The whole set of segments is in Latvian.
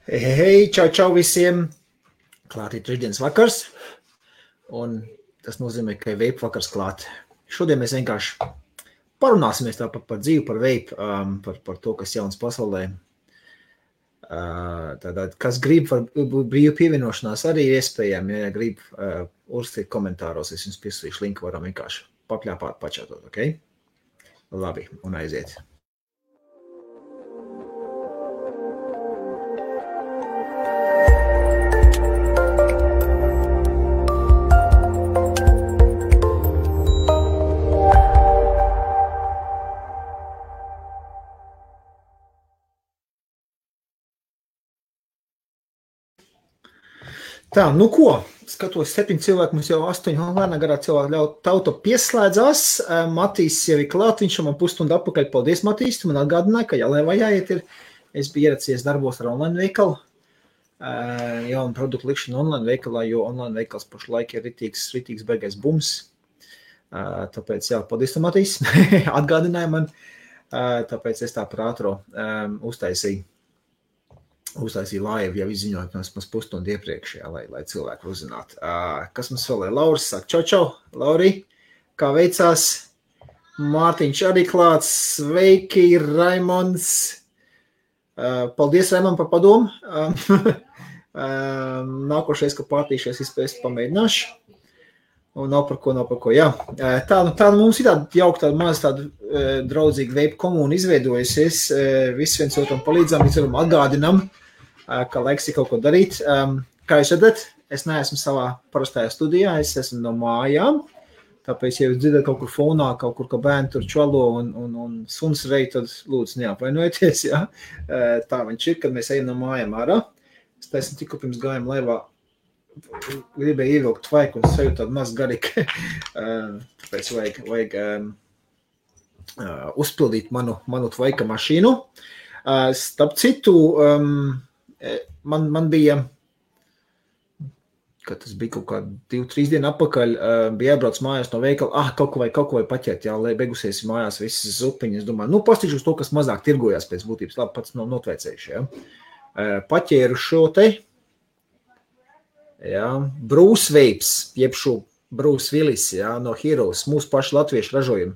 Hei, čau visiem! Klāt ir trešdienas vakars, un tas nozīmē, ka ir vape vakars klāt. Šodien mēs vienkārši parunāsimies tāpat par dzīvi, par vape, par to, kas jauns pasaulē. Tātad, kas grib par brīvu pievienošanās arī ir iespējami, ja grib uzrakstīt komentāros, es jums piesūtīšu linku, varam vienkārši papļāpāt, pačatot, ok? Labi, un aiziet. Tā, nu ko, skatos 7 cilvēku, mums jau 8 lēnā garā cilvēku ļaut tauta pieslēdzās. Matīs jau ir klāt, viņš man pusstundu atpakaļ. Paldies, Matīs, tu man atgādināji, ka jālēvā jāiet ir. Es biju ieracies darbos ar online veikalu, jaunu produktu likšanu online veikalā, jo online veikals pašlaik ir ritīgs beigais bums. Tāpēc, jā, paldies, Matīs, atgādināja man, tāpēc es tā par ātro uztaisīju live, jau izziņoju mums pusstundu iepriekš, jā, lai cilvēku uzzinātu. Kas mums vēl ir? Lauris saka, čau, Lauri, kā veicās? Mārtiņš arī klāts, sveiki, Raimonds. Paldies, Raimond, par padomu. Nākošais, ka pārtīšies, es pamēģināšu. Un nav par ko, jā. Tā mums ir tāda jauka, tāda draudzīga vape komūna izveidojusies. Visi viens otram palīdzam, viens otram atgādinam, ka laiks ir kaut ko darīt. Kā jūs redzat, es neesmu savā parastajā studijā, es esmu no mājām, tāpēc, ja jūs dzirdat kaut kur fonā, kaut kur, ka bērni tur čalo un suns rej, tad lūdzu neapvainojieties, jā. Tā viņš ir, kad mēs ejam no mājām ārā. Es taisnu tikko pirms gājām laivā, gribēju ievilkt tvaiku un sajūt tādu maz garīgi, tāpēc vajag uzpildīt manu tvaika mašīnu. Starp citu, man bija, kad tas bija kaut kā 2-3 dienu atpakaļ, bija jābrauc mājās no veikala, kaut ko vai paķert, jā, lai beigusies mājās visas zupiņas. Es domāju, pastiķu uz to, kas mazāk tirgojās pēc būtības, labi, pats nav notveicējuši, jā. Paķēru šo te, jā, Bruce Vapes, jeb šo Bruce Willis, jā, no Heroes, mūsu paši latviešu ražojumu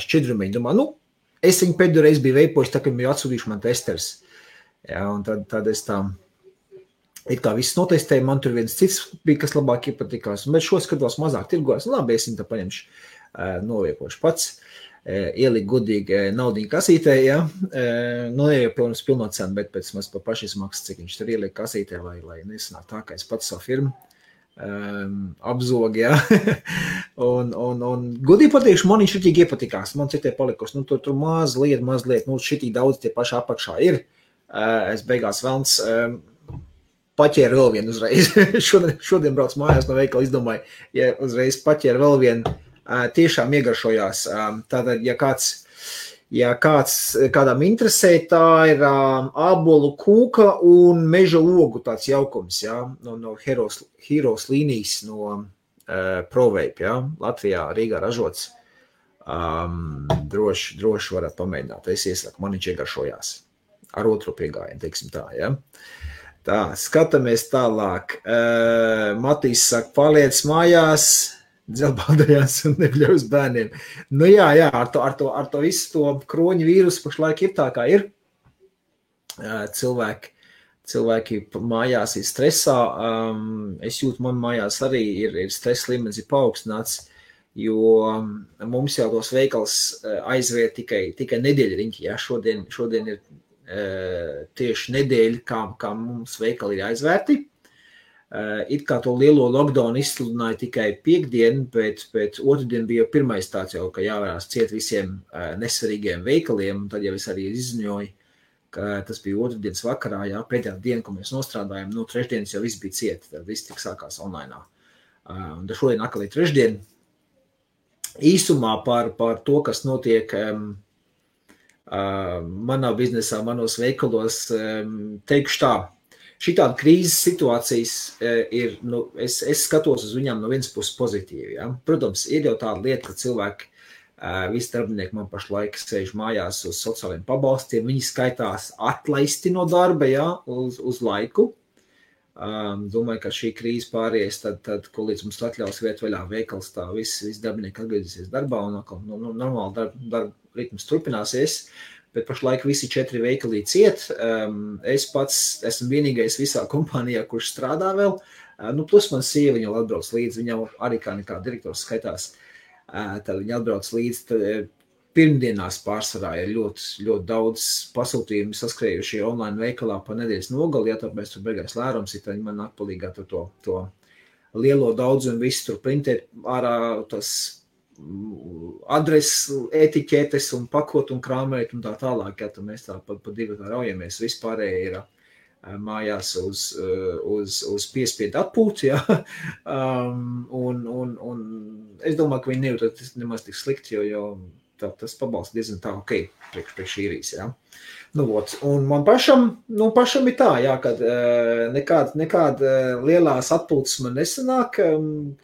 šķidrumiņu. Domāju, es viņu pēdējo reizi biju veipojis, tā, kad biju atsūtījuši man testers. Jā, un tad es tā, it kā viss notestēju, man tur viens cits bija, kas labāk iepatikās, bet šo skatos mazāk tirgojās. Labi, es viņu tā paņemšu, noviekošu pats, ieliku godīgi naudiņu kasītē, jā, jau pilno cenu, bet pēc maz pa pašizmaksas, cik viņš tur ieliek kasītē, lai nesanāk tā, ka es pats savu firmu apzog, jā. un godīgi pateikšu, man viņš šitīgi iepatikās, man citai palikusi, tur mazliet, šitīgi daudz tie paši apakšā ir. Es beigās velns paķēru vēl vienu uzreiz. Šodien brauc mājās no veikala, izdomāju, ja uzreiz paķēru vēl vienu, tiešām iegaršojās. Tātad, ja kādam interesē, tā ir ābolu kūka un meža ogu tāds jaukums, jā, no Heroes līnijas, no ProVape, jā, Latvijā, Rīgā ražots. Droši varat pamēģināt, es iesaku, man viņš iegaršojās. Ar otro piegājienu, teiksim tā, ja? Tā, skatāmies tālāk. Matīs saka, paliec mājās, dzelbādājās un nebļaus bērniem. Nu jā, ar to visu to kroņu vīrusu pašlaik ir tā, kā ir. Cilvēki mājās ir stresā. Es jūtu, man mājās arī ir stress līmenis ir paaugstināts, jo mums jau tos veikals aizvērt tikai nedēļa riņķi, ja? Šodien ir tieši nedēļa, kā mums veikali ir aizvērti. It kā to lielo lockdown izsludināja tikai piekdien, bet otrdien bija pirmais tāds jau, ka jāvērās ciet visiem nesvarīgiem veikaliem, un tad jau es arī izziņoju, ka tas bija otrdienas vakarā, jā, pēdējā diena, ko mēs nostrādājam, trešdienas jau viss bija ciet, tad viss tik sākās online. Un šodien atkal ir trešdien. Īsumā par to, kas notiek manā biznesā, manos veikalos, teikšu tā, šitāda krīzes situācijas ir, es skatos uz viņām no vienas puses pozitīvi, ja? Protams, ir jau tāda lieta, ka cilvēki Visi darbinieki man pašlaik sēž mājās uz sociāliem pabalstiem. Viņi skaitās atlaisti no darba, jā, uz laiku. Domāju, ka šī krīze pāries, tad ko līdz mums atļaus viet vaļā veikals, tā visi darbinieki atgriezīsies darbā un normāli darba ritms turpināsies. Bet pašlaik visi 4 veikali ciet. Es pats esmu vienīgais visā kompānijā, kurš strādā vēl. Plus man sieva, viņa atbrauc līdzi, viņa arī kā nekā direktors skaitās. Tad viņa atbrauc līdzi. Pirmdienās pārsvarā ir ļoti daudz pasūtījumu saskrējušie online veikalā pa nedēļas nogali, ja tāpēc tur beigās lērums ir, tad man nāk palīgā to lielo daudzumu visu tur printēt ārā tas adreses, etiķetes un pakot un krāmēt un tā tālāk, ja tad mēs tā pa divi tā raujamies, vispārēji ir mājās uz piespiedu atpūti, ja. Un es domāju, ka viņi nejūt nemaz tik slikti, jo tas pabalsts diezgan tā ok, priekš īrijas, ja. Un man pašam ir tā, jā, kad nekāda lielās atpūtas man nesanāk,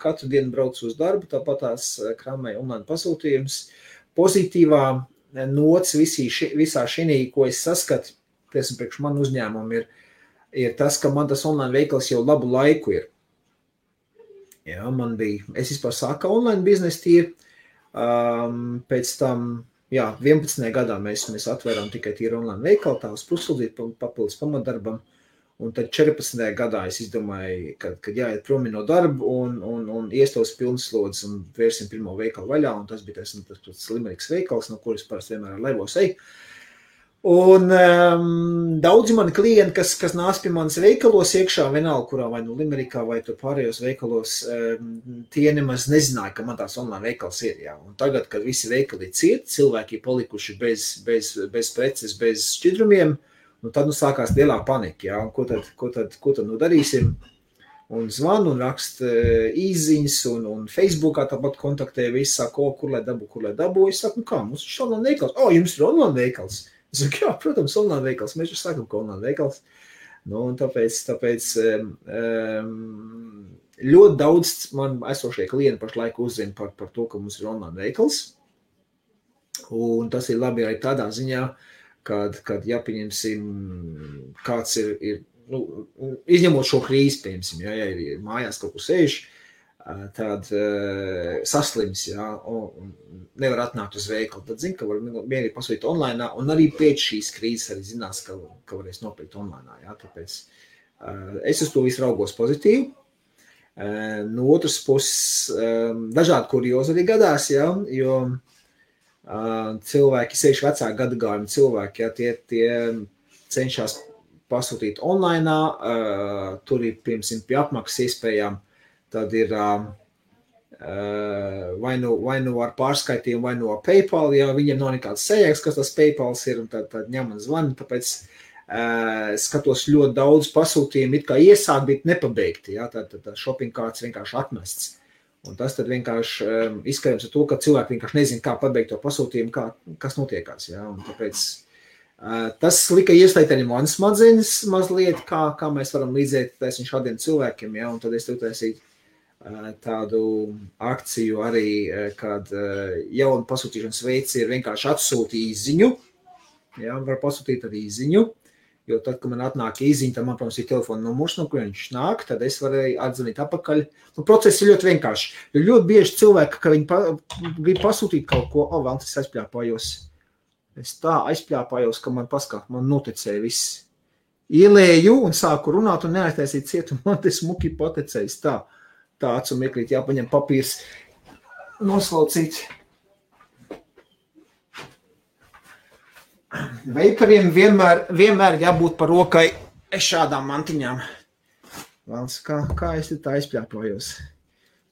katru dienu braucu uz darbu, tāpat tās krāmēju online pasūtījums. Pozitīvā nots visā šinī, ko es saskatu, priekš man uzņēmumu ir tas, ka man tas online veikals jau labu laiku ir. Jā, es vispār sāku online biznesu tīri, pēc tam, jā, 11. gadā mēs atvērām tikai tīri online veikalu, tā uz puslūdzīt papildus pamatdarbam, un tad 14. gadā es izdomāju, kad jāiet promi no darba un iestos pilnslodzes un vērsim pirmo veikalu vaļā, un tas bija tas Limeriks veikals, no kuras parasti vienmēr ar laivos eju. Un daudzi mani klienti, kas nāc pie manas veikalos iekšā, vienalga, kurā vai nu Limerikā vai tur pārējos veikalos, tie nemaz nezināja, ka man tās online veikals ir. Jā. Un tagad, kad visi veikali ir cieti, cilvēki ir palikuši bez preces, bez šķidrumiem, tad sākās lielā panika. Jā. Ko tad darīsim? Un zvanu un rakst īziņas un Facebookā tāpat kontaktē visi, saka, kur lai dabu. Es saku, kā, mums ir online veikals? Jums ir online veikals? Es saku, jā, protams, online veikals. Mēs jau sakam, ka online veikals. Un tāpēc ļoti daudz man esošie klienti pašlaik uzzina par to, ka mums ir online veikals. Un tas ir labi arī tādā ziņā, kad jāpieņemsim, kāds ir izņemot šo krīzi, piemēram, ja ir mājās kaut kur sēž, tad saslims, jā, un nevar atnākt uz veikalu, tad zina, ka var vienīgi pasūtīt online, un arī pēc šīs krīzes arī zinās, ka varēs nopirkt online, jā, tāpēc es uz to visu raugos pozitīvi. No otras puses, dažādi kuriozi arī gadās, jā, jo cilvēki, sevišķi vecāku gadagājumu cilvēki, jā, tie cenšas pasūtīt online, tur ir, piemēram, pie apmaksas iespējām, tad ir vai nu ar pārskaitījumu, vai nu ar PayPal, ja viņiem nav nekāds sajēgs, kas tas PayPals ir, un tad ņem un zvani, tāpēc skatos ļoti daudz pasūtījumu, it kā iesāk, bet nepabeigti, ja, tad shopping carts vienkārši atmests. Un tas tad vienkārši izskatījums ar to, ka cilvēki vienkārši nezina, kā pabeigt to pasūtījumu, kas notiekās, ja, un tāpēc tas lika ieslēgt arī manas smadzenes mazliet, kā mēs varam līdzēt šādiem cilvēkiem, ja, un tad es taisīju tādu akciju arī, kad jaunu pasūtīšanas veids ir vienkārši atsūti īziņu, ja, var pasūtīt arī īziņu, jo tad, kad man atnāk īziņa, tad man, protams, ir telefona numurs, no kur viņš nāk, tad es varēju atzvanīt apakaļ. Process ir ļoti vienkārši, jo ļoti bieži cilvēki, ka viņi grib pasūtīt kaut ko, vēl tas aizpļāpājos. Es tā aizpļāpājos, ka man noticēja viss. Ielēju un sāku runāt un neaiztaisīt ciet, un man tas muki paticējis tā acu meklīt, jāpaņem papīrs noslaucīt. Veikariem vienmēr jābūt par rokai šādām mantiņām. Valds, kā es tā aizpļāpājos?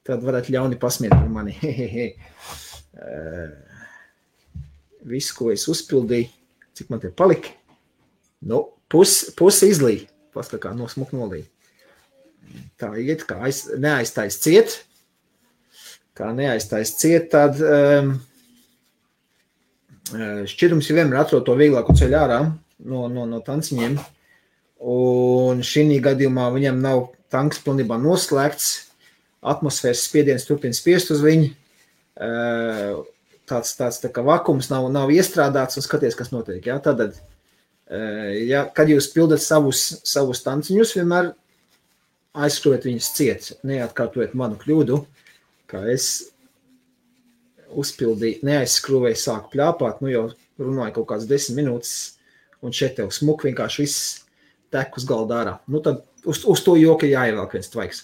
Tad varat ļauni pasmiet par mani. Visu, ko es uzpildīju, cik man te palika, pusi izlīja, pastakā smuk nolīja. Tā iet, kā neaiztais ciet, tad šķirums ir vienmēr atrod to vieglāku ceļu ārā no tanciņiem, un šī gadījumā viņam nav tanks pilnībā noslēgts, atmosfēras spiediens turpina spiest uz viņu, tāds tā kā vakums nav iestrādāts un skaties, kas notiek. Ja? Tātad, ja, kad jūs pildat savus tanciņus, vienmēr aizskrūvēt viņus ciet, neatkārtojiet manu kļūdu, kā es uzpildīju, neaizskrūvēju, sāku pļāpāt, jau runāju kaut kāds 10 minūtes, un šeit tev smuk vienkārši viss tek uz galda ārā. Tad uz to joka jāievelk viens tvaiks.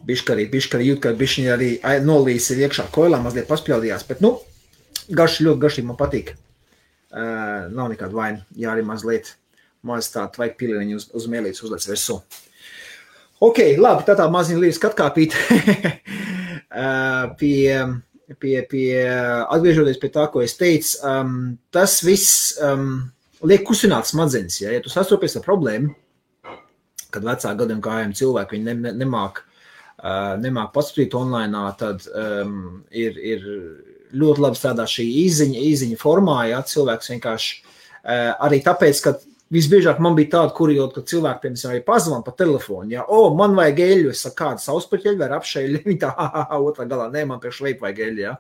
Biškarī jūt, ka bišķiņi arī nolīs ir iekšā koilā, mazliet paspļaudījās, bet, garši, ļoti garšīgi man patīk. Nav nekāda vaina, ja arī mazliet maz tā tvaika pilieniņu uz mēlītes uzlec virsū. Ok, labi, tā maziņa līdz skatkāpīt pie atgriežoties pie tā, ko es teicu, tas viss liek kusināt smadzenes, ja tu sastopies ar problēmu, kad vecāku gadiem gājiem cilvēki, viņi nemāk paskatīt online, tad ir ļoti labi strādā šī īziņa formā, ja cilvēks vienkārši arī tāpēc, ka visbiežāk man bija tāda, ka cilvēki, piemēram, arī pazvan pa telefonu, ja, man vajag eļu, es saku, kāda sauspaķeļu vai apšeļu, viņi tā, otrā galā, nē, man priekš veipu vajag eļu, ja.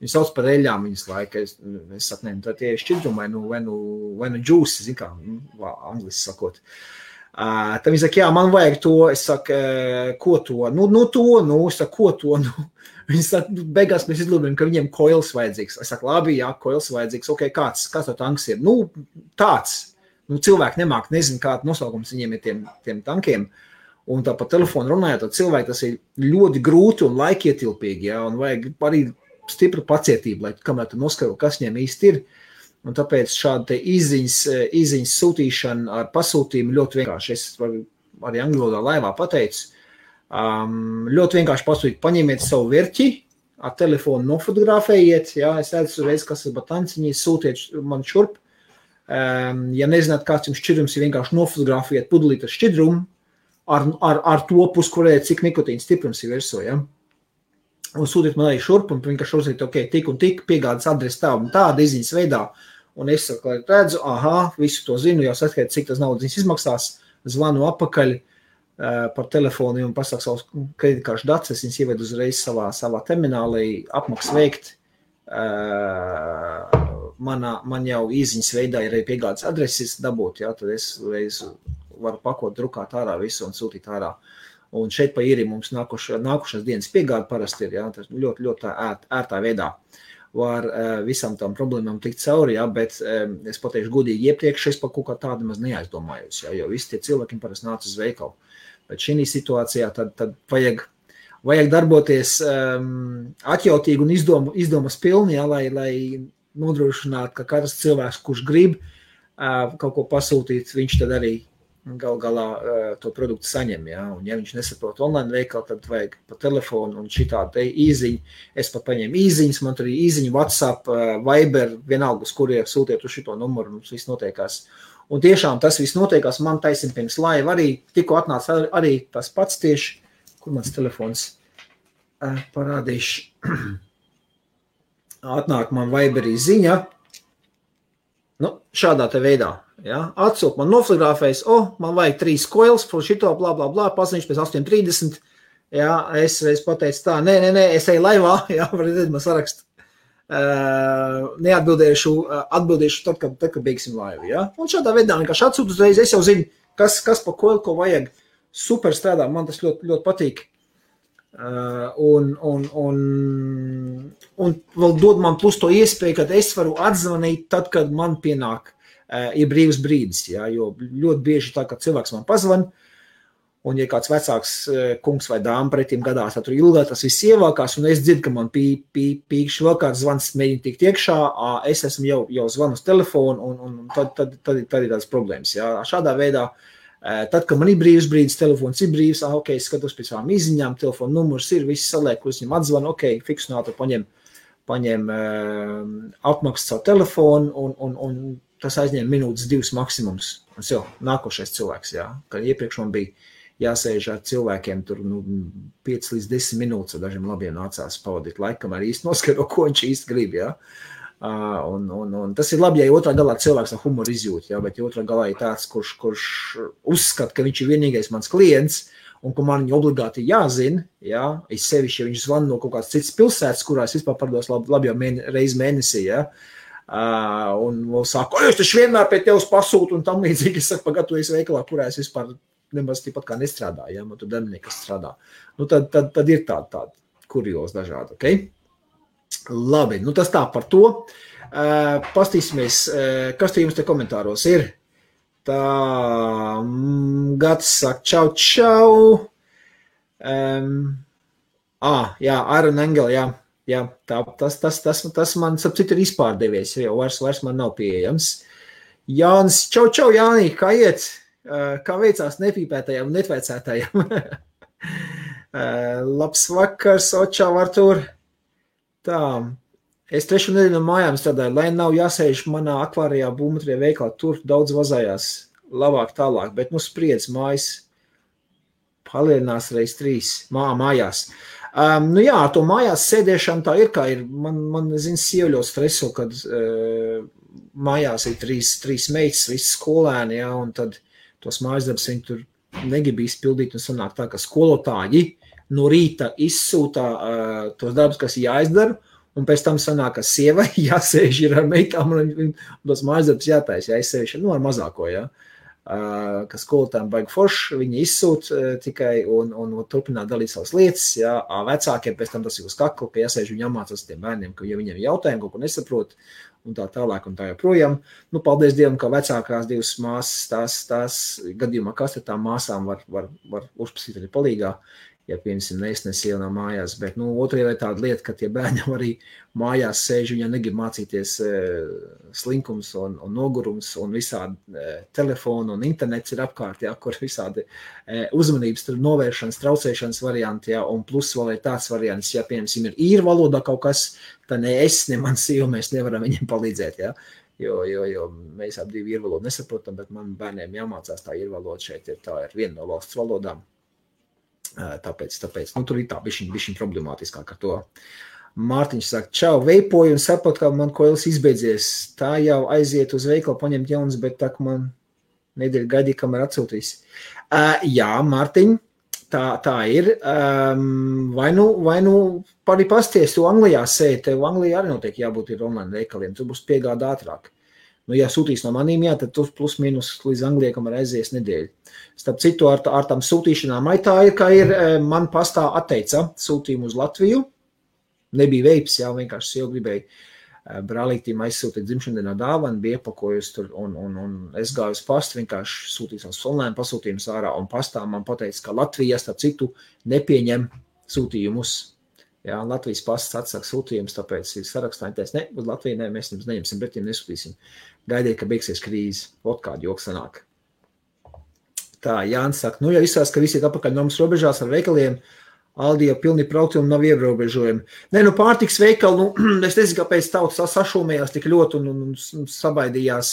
Viņi sauc par eļām viņas laika, es saku, nē, tad tie ir šķidrumi, vai nu džūsi, zin kā, angliski sakot. Tad viņi saka, jā, man vajag to, es saku, ko to? Es saku, ko to? Viņi saka, beigās mēs izlūdām, ka viņiem koils vajadzīgs. Es saku, labi, jā, koils vajadzīgs, ok, kāds to tanks ir? Tāds. Cilvēki nezinu, kāda nosaukums viņiem ir tiem tankiem. Un tā pa telefonu runājot, tad cilvēki tas ir ļoti grūti un laikietilpīgi, ja, un vajag arī stipru pacietību, lai kamēr tu noskaidro, kas viņiem īsti ir. Un tāpēc šāda izziņas sūtīšana ar pasūtījumu ļoti vienkārši. Es arī angļu valodā laivā pateicu. Ļoti vienkārši pasūtīt, paņemiet savu verķi, ar telefonu nofotografējiet, ja, es redzu reiz, kas ir batanciņi, sūtiet man šurp. Ja nezināt, kāds jums šķidrums ir, vienkārši nofotografējiet pudelīt ar šķidrumu, ar to puskurē, cik nikotīna stiprums ir virsū, ja. Un sūtiet man arī šurp, un vienkārši uzlikt, ok, tik un tik, piegādes adresi tā un tāda izziņas veidā, un es redzu, visu to zinu, jau saskait, cik tas naudas izmaksās, zvanu apakaļ par telefonu un pasaka savus kreditkāršu datus, es viņas ievedu uzreiz savā terminālī, apmaks veikt, man jau izziņas veidā ir arī piegādes adreses dabūt, ja, tad es reiz varu pakot, drukāt ārā visu un sūtīt ārā. Un šeit pa īri mums nākušās dienas piegāde parasti ir, ja, tas ļoti, ļoti ērtā veidā var visam tām problēmām tikt cauri, ja, bet es pateikšu godīgi iepriekš, es par kaut kā tādu maz neaizdomājos, ja, jo visi tie cilvēki parasti nāc uz veikalu. Bet šī situācijā tad vajag darboties atjautīgi un izdomas pilni, ja, lai nodrošinātu, ka katrs cilvēks, kurš grib kaut ko pasūtīt, viņš tad arī galā to produktu saņem, ja, un ja viņš nesaprot online veikalu, tad vajag pa telefonu un šitā te īziņu, es pat paņēmu īziņas, man tur arī īziņu, WhatsApp, Viber, vienalga, uz kuriem sūtiet uz šito numuru, mums viss notiekās. Un tiešām tas viss notiekās, man taisim pirms laiva arī, tikko atnāca arī tas pats tieši, kur mans telefons parādīšu, atnāk man Viberī ziņa, šādā te veidā. Ja, atsūt man nofotografējas, man vajag 3 koils, šito, blā, blā, blā, paziņš pēc 8:30, ja, es pateicu tā, nē, es eju laivā, ja, var redzēt, man sarakstu, atbildēšu tad, kad beigsim laivu, ja, un šādā veidā vienkārši atsūt uzreiz, es jau zinu, kas pa koilu, ko vajag, super strādā, man tas ļoti, ļoti patīk, un vēl dod man plus to iespēju, kad es varu atzvanīt tad, kad man pienāk ir brīvs brīdis, ja, jo ļoti bieži tā, ka cilvēks man pazvan, un ja kāds vecāks kungs vai dāma pretim gadās, tad tur ilgāk tas viss ievalkās, un es dzirdu, ka man pīkšķi vēl kāds zvans mēģina tikt iekšā, es esmu jau zvanu uz telefonu, un tad ir tādas problēmas. Ja. Šādā veidā, tad, kad man ir brīvs brīdis, telefons ir brīvs, ok, skatos pēc savām izziņām, telefonu numurs ir, viss saliek, kurus viņam atzvan, ok, fiksinātu, paņem apmaksas savu telefonu, un tas aizņem minūtes 2 maksimums. Un jau nākošais cilvēks, jā. Kad iepriekš man bija jāsēž ar cilvēkiem tur 5 līdz 10 minūtes, ar dažiem labiem nācās pavadīt laikam arī īsti noskaidro, ko viņš īsti grib, jā. Un tas ir labi, ja otrā galā cilvēks ar humoru izjūt, ja, bet ja otrā galā ir tāds, kurš uzskata, ka viņš ir vienīgais mans klients, un ka man viņa obligāti jāzina, ja, es sevišķi, ja viņš zvan no kaut kādas citas pilsētas, kurās vispār pardos labi jau reizi mēnesī, ja, un saka, es taču vienmēr pie tevis pasūtu, un tam līdzīgi es saku, pagatavojies veikalā, kurā es vispār nemaz tāpat kā nestrādāju, ja, man tur darbinieki, kas strādā. Nu, tad ir tāda kuriozi dažādi, ok? Labi, nu tas tā par to. Pastīsimies, kas te jums te komentāros ir. Tā, Gats saka, čau. Jā, Iron Angel, jā, tas man, sap citu, ir izpārdevies, jo vairs man nav pieejams. Jānis, čau, Jānī, kā iet? Kā veicās nepīpētajām un netveicētajām? Labs vakars, Očau, Artur. Tā, es 3 nedēļu no mājām strādāju, lai nav jāsēž manā akvārijā būmutrija veikalā, tur daudz vazājās, labāk tālāk, bet nu spriedz mājas palielinās reiz 3 mājās. Nu jā, to mājās sēdēšana tā ir, kā ir, man zin, sieva ļoti streso, kad mājās ir 3 meitas, visi skolēni, jā, un tad tos mājasdarbus viņi tur negrib izpildīt, un sanāk tā, ka skolotāji no rīta izsūtā tos darbus, kas jāizdara, un pēc tam sanāk, ka sievai jāsēž ir ar meitām, un tos mājasdarbus jātais, jāizsēž, nu ar mazāko, jā. Ka skolotājiem baigi forši, viņi izsūt tikai un turpināt dalīt savas lietas, jā, vecākiem pēc tam tas ir uz kaklu, ka jāsēž viņi jāmācās tiem bērniem, ka ja viņiem jautājumi kaut ko nesaprot, un tā tālāk un tā joprojām. Nu, paldies Dievam, ka vecākās 2 māsas, tās gadījumā, kas te tām māsām var uzprasīt arī palīgā, ja piemēram neiznes iela no mājās, bet, nu, otrajā ir tāda lieta, ka tie bērni arī mājās sēž, viņi negrib mācīties slinkums un nogurums un visādi telefonu un internets ir apkārt, jā, kur visādi uzmanības novēršanas, traucēšanas varianti, jā, un plus vēl ir tāds variants, ja, piemēram, ir īru valodā kaut kas, tad ne es, ne man sieva, mēs nevaram viņiem palīdzēt, jā. Jo mēs ap 2 īru valodu nesaprotam, bet man bērniem jāmācās tā īru valoda šeit tā ir viena no valsts valodām. Tāpēc, nu, tur ir tā bišķiņ problemātiskāk ar to. Mārtiņš saka, čau, veipoju un saprot, ka man koilis izbeidzies. Tā jau aiziet uz veikalu paņemt jaunas, bet tā, ka man nedēļa gaidīja, kamēr atsūtīs. Jā, Mārtiņ, tā ir. Vai nu arī pasties, tu Anglijā sēdi, tev Anglijā arī notiek jābūt ir online veikaliem, tu būs piegāda ātrāk. Nu, ja sūtīs no manīm, jā, tad tu plus mīnus līdz Anglijai, kamēr aizies nedēļu. Starp citu, ar tām sūtīšanām, tā ir, ka man pastā atteica sūtījumu uz Latviju. Nebija veips, jā, vienkārši jau gribēju brālītīm aizsūtīt dzimšandienā dāvanu, bija iepakojusi tur, un es gāju uz pastu, vienkārši sūtīju savus online pasūtījumus ārā, un pastā man pateica, ka Latvija, starp citu, nepieņem sūtījumus. Jā, Latvijas pasts atsaka sūtījumus, tāpēc ir sarakstā, ne, uz Latviju mēs jums neņemsim, bet jums nesūtīsim. Gaidiet, ka beigsies krīze, ot kādu joku sanāk. Tā, Jānis saka, nu, ja izsās, ka visi ir apakaļ nomas robežās ar veikaliem, Aldi jau pilni praukti un nav ierobežojumi. Nē, nu, pārtiks veikali, nu, es nezinu, kāpēc tautas sašūmējās tik ļoti un sabaidījās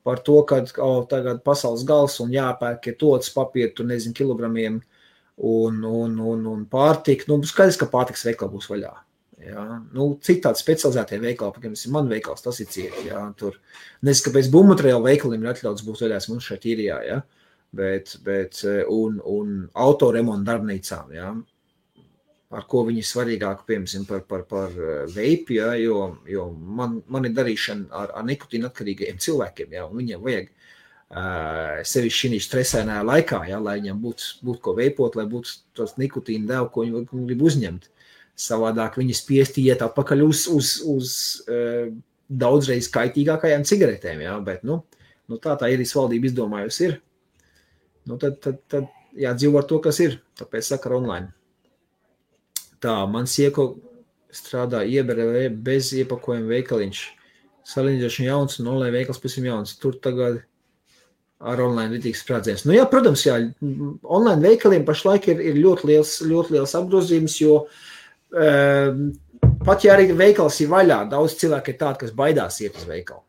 par to, ka tagad pasaules gals un jāpērk ir tots papīri, tur nezinu, kilogramiem un pārtika. Nu, skaidrs, ka pārtiks veikali būs vaļā. Jā. Nu, citādi specializētie veikali, piemēram, man veikals, tas ir cieti. Jā. Tur, nezinu, kāpēc būvmateriālu veikaliem ir atļauts būt vaļās mums šeit īrijā, jā. Bet un autoremontu darbnīcām, jā. Ar ko viņi svarīgāk, piemēram, par veipi, ja, jo man ir darīšana ar nikotīnu atkarīgajiem cilvēkiem, ja, un viņiem vajag sevišķi šī stresēnā laikā, ja, lai viņiem būtu ko veipot, lai būtu tos nikotīnu devu, ko viņi grib uzņemt. Savādāk viņi spiesti iet atpakaļ uz daudzreiz kaitīgākajām cigaretēm, ja, bet, nu tā īrijas valdība izdomājusi ir. Nu, tad jādzīvo ar to, kas ir, tāpēc saka online. Tā, man sieko strādā ieberē bez iepakojuma veikaliņš. Salīdzinoši jauns un online veikals pavisam jauns. Tur tagad ar online ritīgs sprādziens. Nu jā, protams, jā, online veikaliem pašlaik ir ļoti liels apgrozījums, jo pat ja arī veikals ir vaļā, daudz cilvēku ir tādi, kas baidās iet uz veikalu.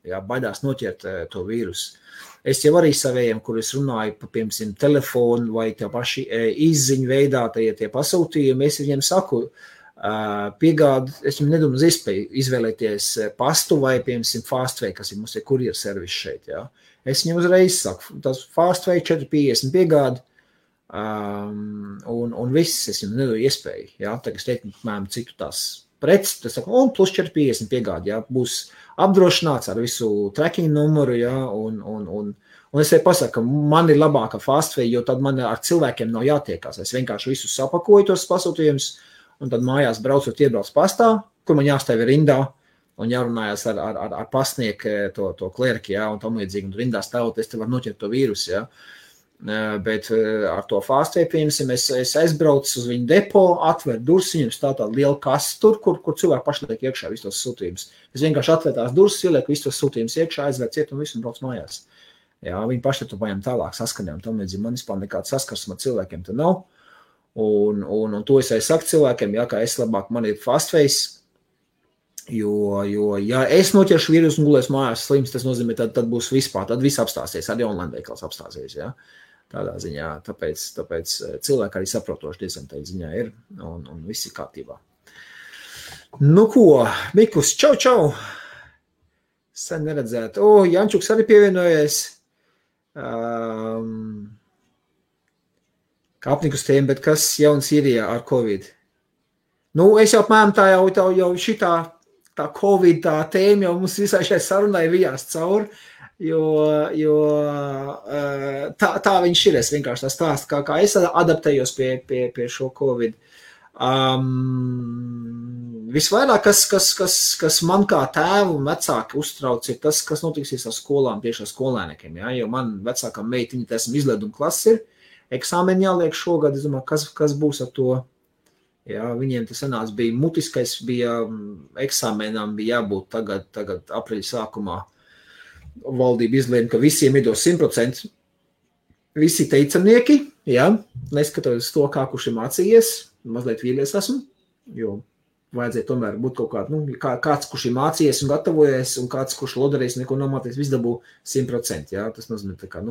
Jā, baidās noķert to vīrusu. Es jau arī savējiem, kur es runāju pa, piemēram, telefonu vai tie paši izziņu veidā, tie pasūtījumi, es viņiem saku, piegādi, es jums nedomāju uz iespēju izvēlēties pastu vai, piemēram, Fastway, kas ir mums ir kurjeru servis šeit, jā. Es viņam uzreiz saku, tas Fastway 4,50 piegādi, un viss, es jums nedodu iespēju, jā, tagad es teiktu, mēram, citu tās preces, tas saku, un plus 4,50 piegādi, jā, būs apdrošināts ar visu tracking numuru, jā, un es tev pasaku, ka man ir labāka Fastway, jo tad man ar cilvēkiem nav jātiekās. Es vienkārši visus sapakoju tos pasūtījumus, un tad mājās braucot iebrauc pastā, kur man jāstāv rindā, un jārunājas ar pastnieku to klerki, jā, un tam līdzīgi, un rindā stāvot, es te varu noķert to vīrusu, jā. Bet ar to Fastway, piemēram, es aizbraucu uz viņu depo, atveru durvis, viņam stāv tāda liela kasta tur, kur cilvēki paši liek iekšā visus tos sūtījumus. Es vienkārši atveru tās durvis, ielieku visus tos sūtījumus iekšā, aizver ciet un visu un brauc mājās. Jā, viņi paši to paņem tālāk saskanē, un tam līdzīgi man vispār nekāds saskarsuma cilvēkiem te nav. Un to es arī saku cilvēkiem, jā, ka es labāk man ir Fastways, jo ja es noķeršu vīrusu un gulēs mājās slims, tas nozīmē, tad būs vispār, tad viss apstāsies, arī online veikals apstāsies, jā. Tādā ziņā, tāpēc cilvēki arī saprotoši diezgan tā ziņā ir, un viss ir kārtībā. Nu ko, Mikus, čau! Sen neredzēt. Jančuks arī pievienojies. Kāpnikus tēma, bet kas jauns Sīrijā ar Covid? Nu, es jau apmēram tā jau šitā tā Covid tā tēma jau mums visai šai sarunai vijās cauri, jo tā viņš ir, es vienkārši tā stāstu, kā es adaptējos pie šo Covid. Visvairāk, kas man kā tēvu un vecāki uztrauc, ir tas, kas notiksies ar skolām, tieši ar skolēniekiem, jā, jo man vecākam meitiņa, esmu izleduma klasi ir, eksāmeni jāliek šogad, es domāju, kas būs ar to, jā, viņiem tas sanāca bija mutiskais, bija eksāmenām, bija jābūt tagad aprīļa sākumā, valdība izlēma, ka visiem iedos 100%, visi teicamnieki, jā, neskatoties to, kā kurš ir mācījies, mazliet vīlies esmu, jo vajadzēja tomēr būt kaut kāds, kurš ir mācījies un gatavojies, un kāds, kurš lodarējis, neko nomāties, viss dabū 100%, jā, tas nozīmē tā kā,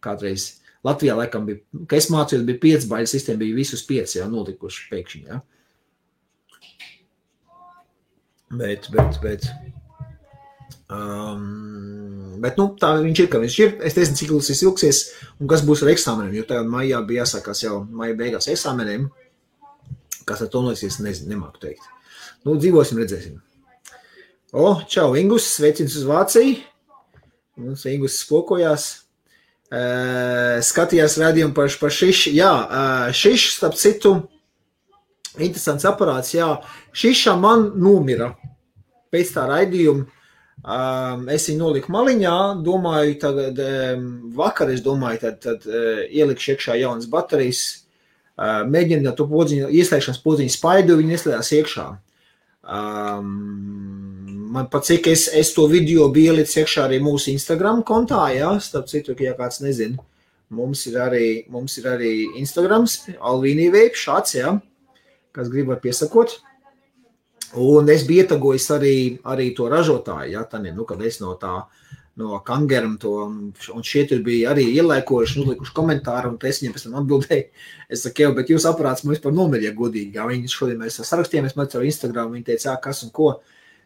kādreiz Latvijā laikam bija, ka es mācījos, bija 5 baiļu sistēma, bija visus 5, jā, nolikuši pēkšņi, jā. Bet, tā viņš ir, ka viņš ir, es nezinu, cik ilgs ilgsies, un kas būs ar eksāmeniem, jo tagad maijā bija jāsākās jau maija beigās eksāmeniem, kas ar to noliksies, nezinu, nemāku teikt. Dzīvosim, redzēsim. Čau, Ingus, sveicins uz Vāciju. Mums Ingus spokojās. Skatījās rādījumu par Šišu. Jā, Šiša, starp citu, interesants aparāts, jā. Šiša man nomira pēc tā raidījuma. Es viņu noliku maliņā, domāju, tagad vakar, es domāju, tad ielikšu iekšā jaunas baterijas, mēģināt to podziņu, ieslēgšanas podziņu spaidu, viņi ieslēdās iekšā. Man pat cik es to video biju ielicis iekšā arī mūsu Instagram kontā, jā, starp citu, ja kāds nezina, mums ir arī Instagrams, Alvīnī Veip, šāds, jā, kas grib var piesakot. Un es biju ietagojis arī to ražotāju, jā, tad, kad es no Kangeram to, un šie tur bija arī ielēkojuši, uzlikuši komentāru, un es viņiem pēc tam atbildēju. Es saku, jau, bet jūs aparāts man vispār nomirīja godīgi, jā, viņi šodien mēs sarakstījāmies, man caur Instagram, viņi teica, kas un ko.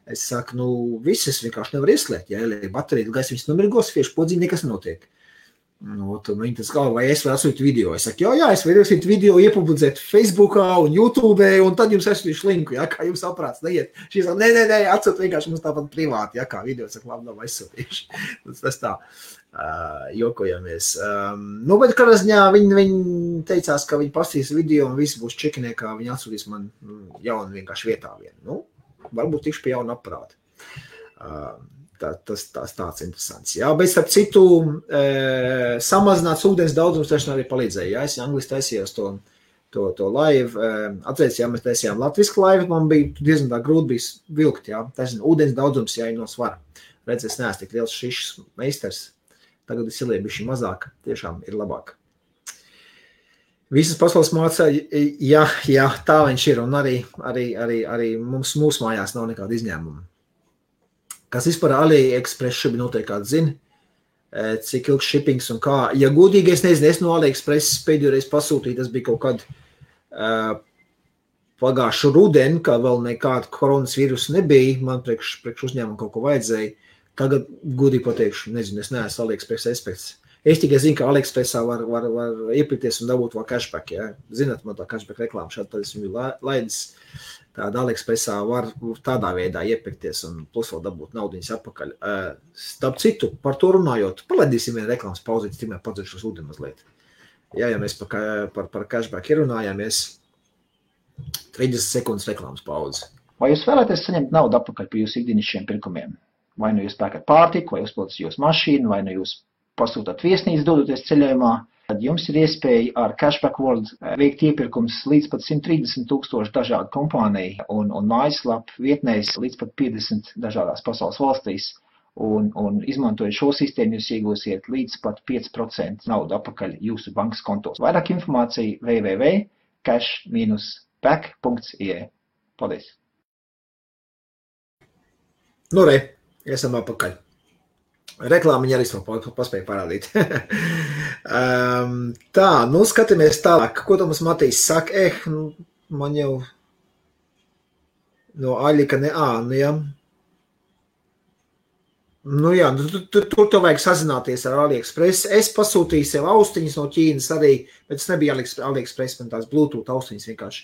Es saku, viss es vienkārši nevaru ieslēgt, ja baterija, gaisa viņas nomirgos, fieši podziņi, nekas nenotiek. Tad viņi tas galva, vai es varu atsūtīt video. Es saku, jā, es varu atsūtīt video, iepublicēt Facebookā un YouTube, un tad jums atsūtīšu linku, ja, kā jums aparāts neiet. Šī saka, nē, atsūt vienkārši mums tāpat privāti, ja, kā video, saka, labi, nav aizsūtīšu. Tas tā, jokojamies. Bet kādā ziņā viņi teicās, ka viņi pastīs video un visi būs čekinē, kā viņi atsūtīs man jaunu vienkārši vietā vienu. Varbūt tikšu pie jauna aparāta. Tas tāds interesants. Jā, bet starp citu, samazināts ūdens daudzums taču arī palīdzēja. Jā, es angliski taisījos to live. Atcerēs, jā, mēs taisījām latvisku live, man bija diezgan tā grūti bija vilkt, jā. Taisnība, ūdens daudzums, jā, ir no svara. Redz, es neesmu tik liels Šišas meistars. Tagad es ielieju bišķi mazāk, tiešām ir labāk. Visas pasaules mācā, jā, tā viņš ir, un arī mūsu mājās nav nekāda izņēmuma. Kas vispār AliExpress šobrīd noteikti kāds zina, cik ilgs shippings un kā. Ja godīgi, es nezinu, es no AliExpress pēdējo reizi pasūtīju, tas bija kaut kad pagājušu rudeni, kā vēl nekāda koronas vīrusa nebija, man priekš uzņēmumu kaut ko vajadzēja. Tagad, godīgi pateikšu, nezinu, es neesmu AliExpress eksperts. Es tikai zinu, ka AliExpressā var iepirkties un dabūt vēl cashback, ja. Zināt, man tā cashback reklāma šādi, tad es viņu laidis. Tāda AliExpressā var tādā veidā iepirkties un plus vēl dabūt naudiņas atpakaļ. Starp citu, par to runājot, palaidīsim vienu reklāmas pauzīti, tikmēr padziršu uz ūdeni mazliet. Jā, ja mēs par cashback ierunājāmies, 30 sekundes reklāmas pauzi. Vai jūs vēlaties saņemt naudu atpakaļ par jūsu ikdienišķiem pirkumiem? Vai nu jūs pērkat pārtiku, vai uzpildat jūsu mašīnu, vai nu jūs pasūtat viesnīcu dodoties ceļojumā? Tad jums ir iespēja ar Cashback World veikt iepirkums līdz pat 130,000 dažādu kompāniju un mājaslapu vietnēs līdz pat 50 dažādās pasaules valstīs. Un izmantojot šo sistēmu, jūs iegūsiet līdz pat 5% naudu atpakaļ jūsu bankas kontos. Vairāk informācija www.cash-back.ie. Paldies! Nu, esam atpakaļ. Reklāmiņa arī paspēja parādīt. Tā, nu skatāmies tālāk. Ko tu mums Matīs saka? Man jau no aļika nu jā. Nu jā, tur tev vajag sazināties ar AliExpress. Es pasūtīju sev austiņas no Ķīnas arī, bet tas nebija AliExpress, man tās Bluetooth austiņas vienkārši.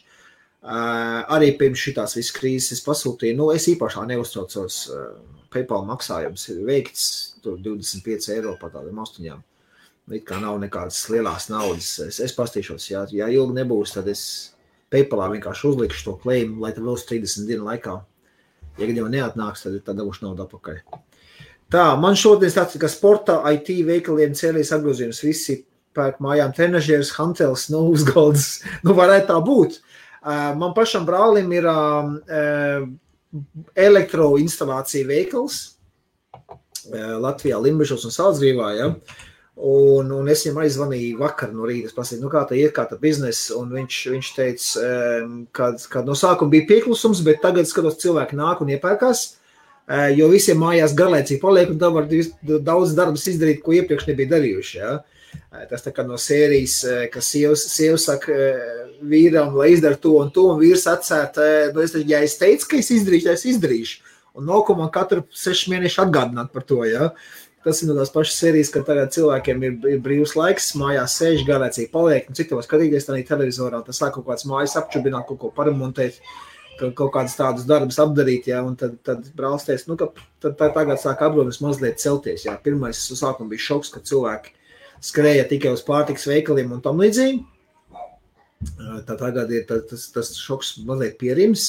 Arī pirms šitās visas krīzes es pasūtīju. Nu, es īpašā neuztraucos. PayPal maksājums ir veikts, tur 25 eiro par tādām austiņām. It kā nav nekādas lielās naudas. Es pastīšos, ja ilgi nebūs, tad es PayPalā vienkārši uzlikšu to claim, lai tad vēl 30 dienu laikā. Ja gadījumā neatnāks, tad dabūšu naudu atpakaļ. Tā, man šodien tāds, ka sporta IT veikaliem cēlīs apgrozījums visi pērk mājām trenažieris, hantels, nu uzgaldas, nu varētu tā būt. Man pašam brālim ir elektroinstalācija veikals Latvijā, Limbažos un Saldzgrīvā, ja? Un es viņam aizvanīju vakar no rīta, es pasīju, nu kā tā iet, kā tā biznesa, un viņš teica, kad no sākuma bija pieklusums, bet tagad skatos cilvēki nāk un iepērkās, jo visiem mājās garlaicīgi paliek, un tā var daudz darbus izdarīt, ko iepriekš nebija darījuši, ja? Tas tā kā no sērijas, ka sieva saka vīram, lai izdara to, un vīrs atsēt, nu ja es teicu, ka es izdarīšu, tad es izdarīšu. Un nav ko man katru 6 mēnešu atgādināt par to, ja. Tas ir no tās pašas sērijas, ka tagad cilvēkiem ir brīvs laiks, mājās sēž, garlaicīgi paliek, un cik tev skatīties tādā televizorā, tas sāk kaut kāds mājas apčubināt, kaut ko paremontēt, kaut kādas tādus darbus apdarīt, ja, un tad brālis teica, nu, ka tagad sāk apgrozījums mazliet celties, ja. Pirmais sākuma bija šoks, ka cilvēki skrēja tikai uz pārtikas veikaliem un tam līdzīgi. Tā tagad ir tas šoks mazliet pierims,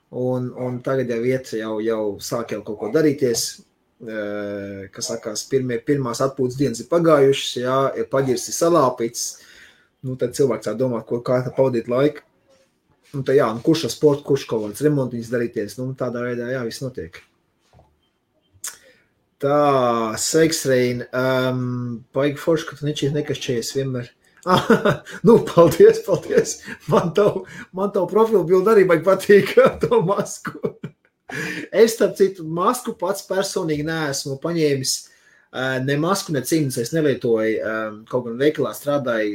un tagad jau iet, jau sāk jau kaut ko darīties, kas sakās, pirmās atpūtas dienas ir pagājušas, jā, ir paģirs, ir salāpīts, nu tad cilvēks tā domā, kā tā pavadīt laiku. Un tā jā, kurš ar sportu, kurš kaut kāds remontiņas darīties, nu tādā veidā, jā, viss notiek. Tā, sveiks, Rein. Paigi forši, ka tu nekašķējies vienmēr. Nu, paldies. Man tavu profilu bildi arī baigi patīk to masku. Es, starp citu, masku pats personīgi neesmu paņēmis ne masku, ne cimdus. Es nelietoju, kaut gan veikalā strādāju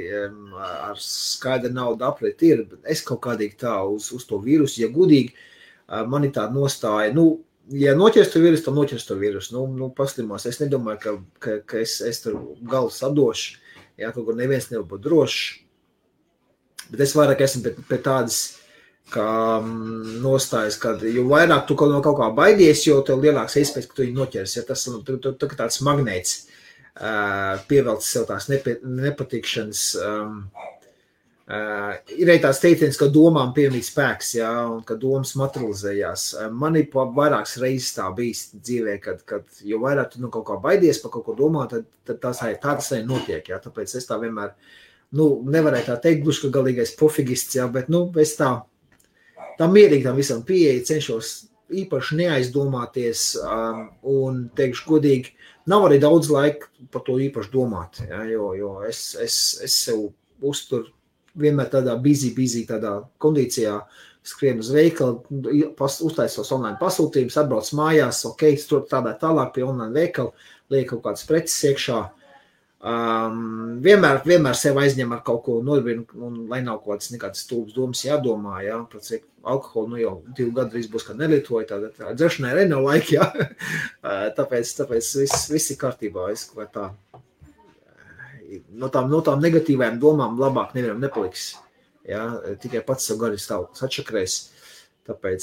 ar skaidru naudu aprēt ir. Es kaut kādīgi tā uz to vīrusu, ja gudīgi, man ir tāda nostāja, nu, ja noķers to vīrusu, tad noķers to vīrusu. Nu, paslimās. Es nedomāju, ka es tur galvu sadošu. Jā, kaut kur neviens nevar būt drošs. Bet es vairāk esmu pēc tādas, kā nostājas, kad jo vairāk tu no kaut kā baidies, jo tev lielāks iespējas, ka tu viņu noķers. Ja tas tāds magnēts pievelc sev tās nepatikšanas. Ir arī tāds teiciens, ka domām piemīt spēks, jā, un ka domas materializējās. Man ir vairākas reizes tā bijis dzīvē, kad jo vairāk tu kaut kā baidies par kaut ko domāt, tad tā tas arī notiek, jā. Tāpēc es tā vienmēr, nu, nevarēju tā teikt, gluži, ka galīgais pofigists, jā, bet, nu, es tā mierīgi tam visam pieeja, cenšos īpaši neaizdomāties, un teikšu godīgi, nav arī daudz laika par to īpaši domāt, jā, jo es sev uzturu vienmēr tādā busy tādā kondīcijā, skrien uz veikalu, uztaisos online pasūtījumus, atbrauc mājās, ok, tur tādā tālāk pie online veikalu, liek kaut kādas preces iekšā, Vienmēr sev aizņem ar kaut ko nodarbinu, un lai nav kaut kādas stulbas domas jādomā, jā, par cik alkoholu, jau 2 gadu drīz būs, kad nelietoju, tā dzeršanai arī nav laika, jā. Tāpēc viss ir kārtībā, vai tā. No tām negatīvajām domām labāk nevienam nepaliks, jā, tikai pats savu gari stāvoklis atšakrēs. Tāpēc,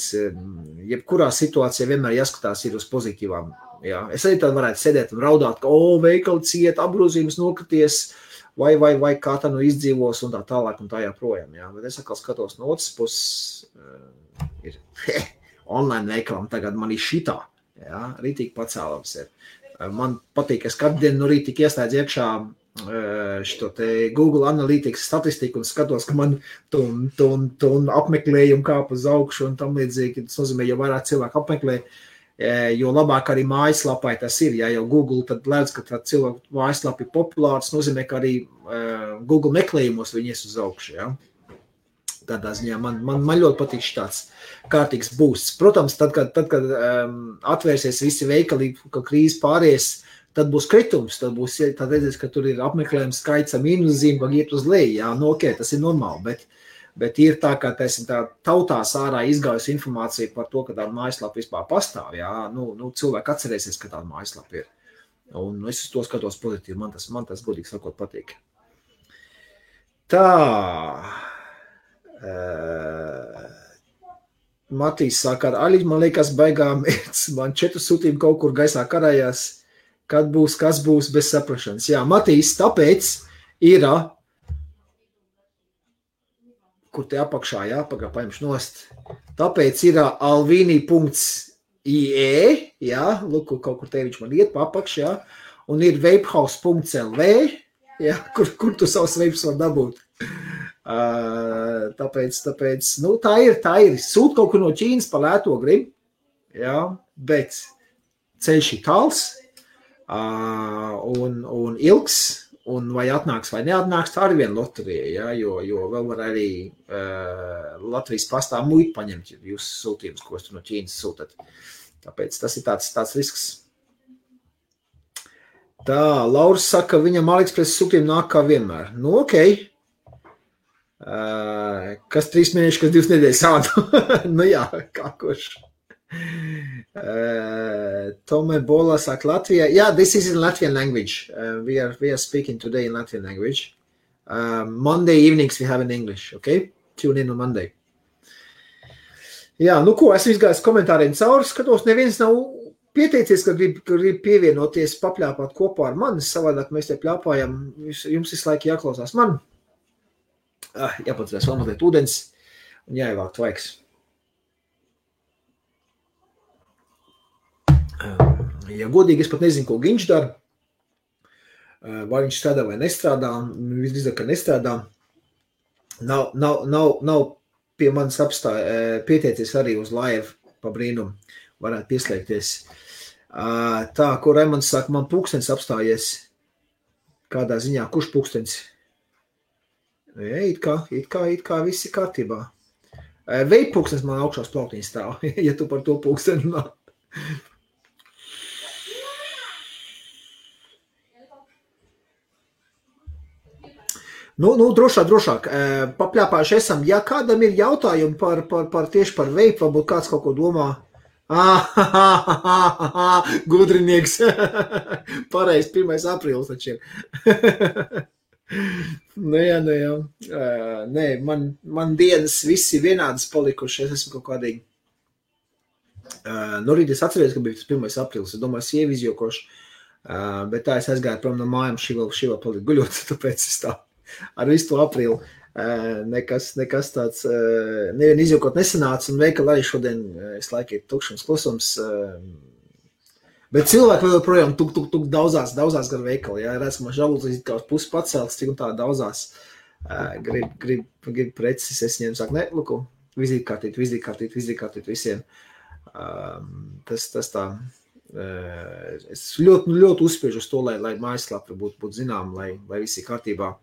jebkurā situācijā vienmēr jāskatās ir uz pozitīvām. Jā. Es arī tad varētu sēdēt un raudāt, ka, veikali ciet, apgrozījums nokrities, vai kā tā izdzīvos un tā tālāk un tā jāprojām. Jā. Bet es atkal skatos no otras puses, ir online veikalam tagad man ir šitā, jā, rītīgi pacēlams ir. Man patīk, es katru dienu no rīta tik ieslēdz iekšā šito te Google Analytics statistiku un skatos, ka man un apmeklējumu kāp uz augšu un tam līdzīgi. Tas nozīmē, jo vairāk cilvēku apmeklē, jo labāk arī mājaslapai tas ir. Ja jau Google tad lēdz, ka tā cilvēku mājaslapa ir populārs, nozīmē, ka arī Google meklējumos viņi ies uz augšu. Ja? Tādā ziņā man ļoti patīk tāds kārtīgs boosts. Protams, tad, kad atvērsies visi veikali, ka krīze pāries, tad būs kritums, tad redzēs, ka tur ir apmeklējums skaits ar mīnuszīm, ka iet uz leju. Jā, ok, tas ir normāli, bet ir tā, ka tā tautās ārā izgājusi informācija par to, ka tāda mājaslapa vispār pastāv. Jā, cilvēki atcerēsies, ka tāda mājaslapa ir. Un es uz to skatos pozitīvi, man tas godīgi sakot patīk. Tā. Matīs saka, Aļi, man liekas, baigām, man 4 sūtījumi kaut kur gaisā karājās. Kad būs, kas būs bez saprašanas. Jā, Matīs, tāpēc ir, kur te apakšā, jā, paņemšu nost, tāpēc ir alvini.ie, jā, lūk, kaut kur te viņš man iet pa apakš, jā, un ir vapehouse.lv, jā, kur tu savus vapes var dabūt. Tāpēc, tā ir, sūt kaut kur no Ķīnas pa lēto grib, jā, bet ceļš ir tāls, un ilgs, un vai atnāks vai neatnāks, tā arī viena loterija, ja, jo vēl var arī Latvijas pastā muitu paņemt jūsu sūtījumus, ko jūs no Ķīnas sūtat. Tāpēc tas ir tāds risks. Tā, Lauris saka, viņam AliExpress sūtījumi nāk kā vienmēr. Nu, ok. Kas 3 mēneši, kas 2 nedēļas sādu? Nu jā, kā kurš. Tome Bola saka Latvija. Yeah, this is in Latvian language. We are speaking today in Latvian language. Monday evenings we have in English, okay? Tune in on Monday. Jā, nu ko, esmu izgājis komentāriem cauri, skatos, neviens nav pieteicies, ka grib pievienoties, papļāpāt kopā ar mani, savādāk mēs te pļāpājam, jums visu laiku jāklausās man. Jāpadzēs vēl mazliet ūdens un jāievāk tvaiks. Ja godīgi, es pat nezinu, ko Ginč dara, vai viņš strādā vai nestrādā, visdrīzāk, ka nestrādā. Nav pie manis pieteicies arī uz live pa brīnumu, varētu pieslēgties. Tā, ko Raimonds saka, man pulkstenis apstājies, kādā ziņā, kurš pulkstenis? It kā viss ir kārtībā. Veip pulkstenis man augšās plauktiņas stāv, ja tu par to pulksteni runā. Nu, drošāk. Papļāpājuši esam. Ja kādam ir jautājumi tieši par veipu, varbūt kāds kaut ko domā. Gudrinieks. Pareizi, 1. aprīlis taču ir. Jā. Nē, man dienas visi vienādas palikuši. Es esmu kaut kādīgi. Nu, rīt es atceries, ka bija tas 1. aprīlis. Es domāju, sievi izjokoši. Bet tā es aizgāju prom no mājām, šī vēl palika guļot, tāpēc es tā. Ar visu to aprīlu nekas tāds nevien izjūkot nesanāca, un veikali arī šodien es laiku ir tukšums klusums, bet cilvēki vēl projām tuk daudzās gar veikali, jā, redz, ka man žalūzīs kā uz pusi pacelts, cik un tā daudzās grib preces, es viņiem saku, ne, luku, vizītkārtīt visiem, tas tā, es ļoti uzspiežu uz to, lai mājaslapa būtu zinām, lai viss ir kārtībā.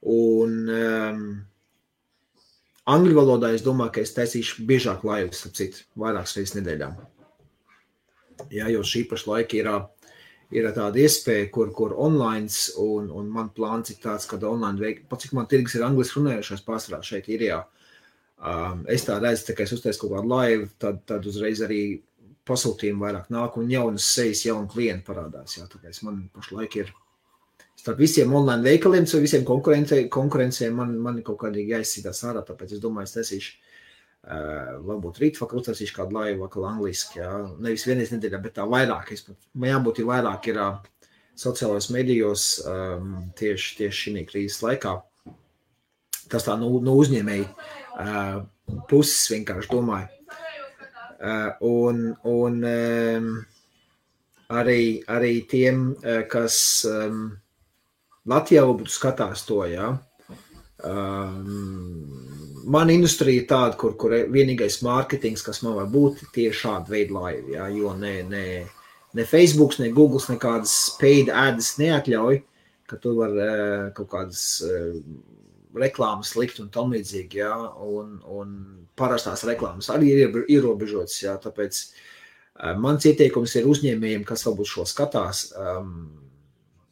Un angļu valodā es domāju, ka es taisīšu biežāk laivas, vairākas reizes nedēļā. Jā, jo šī paša laika ir tāda iespēja, kur online, un man plāns ir tāds, kad online veik, pat cik man tirgus ir angliski runājušais pārsvarā šeit Irijā. Es tā redzu, tā kā es uztaisu kaut kādu live, tad uzreiz arī pasūtījumi vairāk nāk, un jaunas sejas, jauni klienti parādās. Jā, tāpēc man pašlaik ir starp visiem online veikaliem, so visiem konkurencēm man kaut kādīgi jāizsītās ārā, tāpēc es domāju, es taisīšu varbūt rīt vakar uztaisīšu kādu laivu vakar angliski, jā. Nevis vienreiz nedēļā, bet tā vairāk. Man jābūt ir vairāk ir sociālajos medijos tieši šī krīzes laikā. Tas tā no uzņēmēji puses vienkārši domāju. Un arī tiem, kas Latvijā būtu skatās to, jā. Man industrija ir tāda, kur vienīgais mārketings, kas man var būt, tieši šāda veida laivi, jā, jo ne Facebooks, ne Googles nekādas paid ads neatļauj, ka tu var kaut kādas reklāmas likt un tam līdzīgi, jā, un parastās reklāmas arī ir ierobežotas, jā, tāpēc mans ieteikums ir uzņēmējiem, kas varbūt šo skatās,